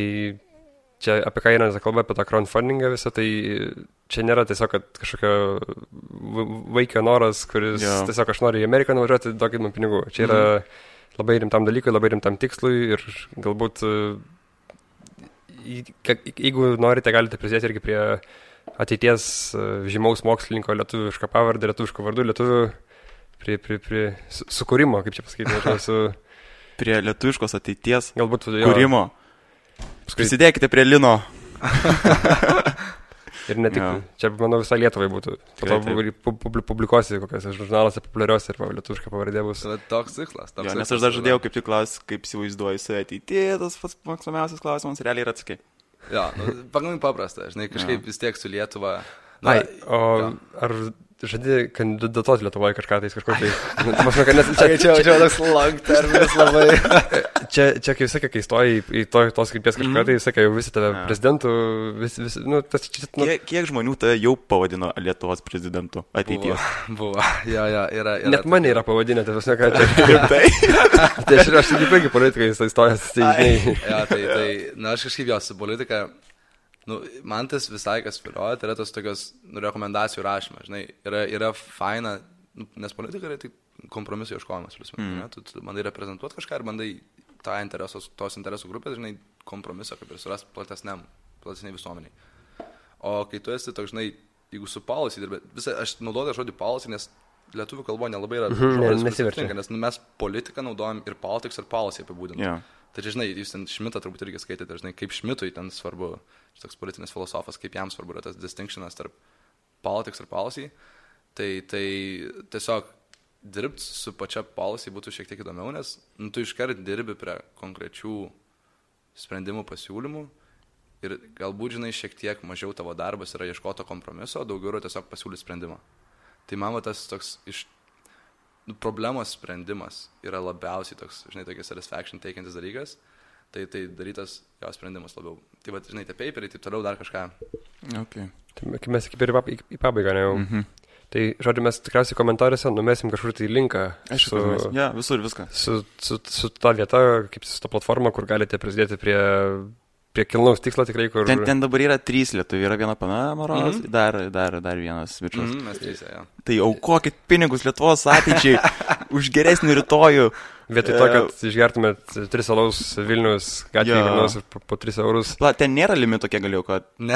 čia apie ką yra kalba, apie tą crowdfundingą visą, tai čia nėra tiesiog kažkokio vaikio noras, kuris tiesiog aš noriu į Ameriką nuvažiuoti, duokit man pinigų. Čia yra labai rimtam dalykui, labai rimtam tikslui ir galbūt, jeigu norite, galite prisidėti irgi prie ateities žymaus mokslininko lietuvišką pavardę, lietuviško vardu, lietuvių prie sukūrimo, kaip čia pasakyti, prie lietuviškos ateities galbūt kūrimo. Prisidėkite prie Lino. Ir ne tik, čia, manau, visai Lietuvai būtų. Po to publikuosi kokiuose žurnaluose populiariuose ir lietuviška pavardė bus. Toks tikslas. Nes aš dar žadėjau kaip tik klausti, kaip įsivaizduoju save ateityje, tas pats mėgstamiausias klausimas realiai yra atsakai. Jo, pakankamai paprasta, žinai, kažkaip vis tiek su Lietuva. Ar žadi kandidatuoti Lietuvoje kažką tai kažkur tai? Čia toks long terminas labai. Čia kai sakė, kai stoji į tos krypties kažką, tai sakė, jau visi tave prezidentų, Kiek žmonių tave jau pavadino Lietuvos prezidentu ateityje? Buvo, jo, yra. Net mane yra pavadinę, tai visą ką čia. Tai aš tik puikiai politikai įstojęs. Aš kažkaip jos su politika, man tas visai kas vilioja, tai yra tas tokios rekomendacijų rašymas, žinai, yra faina, nes politika yra tik kompromisų ieškojimas, tu bandai reprezentuoti kažką ir bandai tos interesų grupės, žinai, kompromisą kaip ir surasti platesniai visuomeniai. O kai tu esi toks, žinai, jeigu su policy dirbi, aš naudoju žodį policy, nes lietuvių kalboje nelabai yra žodis, nes mes politiką naudojam ir politics ir policy apibūdinam. Yeah. Tai žinai, jūs ten Šmitą turbūt irgi skaitėte, žinai, kaip Šmitui ten svarbu, toks politinis filosofas, kaip jam svarbu yra tas distinctionas tarp politics ir policy, tai tiesiog dirbti su pačia policy būtų šiek tiek įdomiau, nes tu iškart dirbi prie konkrečių sprendimų pasiūlymų ir galbūt, žinai, šiek tiek mažiau tavo darbas yra ieškoti kompromiso, daugiau yra tiesiog pasiūlyti sprendimą. Tai man tas toks problemos sprendimas yra labiausiai toks, žinai, tokia satisfaction teikiantis dalykas, tai darytas jo sprendimas labiau. Tai va, žinai, tie paperiai, taip toliau dar kažką. Okay. Tai mes kaip ir į pabaigą, ne jau. Tai, žodžiu, mes tikriausiai komentaruose numesim kažkur tai linką. Visur viską. Su ta vieta, kaip su ta platforma, kur galite prisidėti prie kilnaus tikslo tikrai, kur... Ten dabar yra 3 lietuviai, yra viena pana Maronas, dar vienas bičias. Mes 3, jo. Tai aukokit pinigus Lietuvos ateičiai už geresnį rytojų. Vietoj to, kad išgertumėt 3 alaus Vilnius, gatvėje Vilnius po 3 eurus. Ten nėra limito, kiek galėjau, kad... Ne.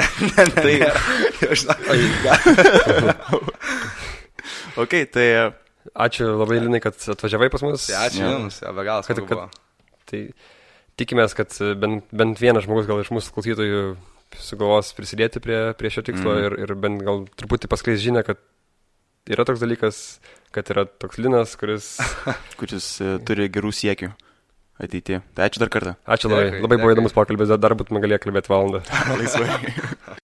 Ok, tai... Ačiū labai, Linai, kad atvažiavai pas mus. Ačiū Jums, be galo smagu buvo. Tai tikimės, kad bent vienas žmogus gal iš mūsų klausytojų sugalvos prisidėti prie šio tikslo ir bent gal truputį paskleis žinią, kad yra toks dalykas, kad yra toks Linas, kuris turi gerų siekių ateityje. Tai ačiū dar kartą. Ačiū labai. Labai buvo įdomus pokalbis, dar būtume galėję kalbėti valandą. Laisvai.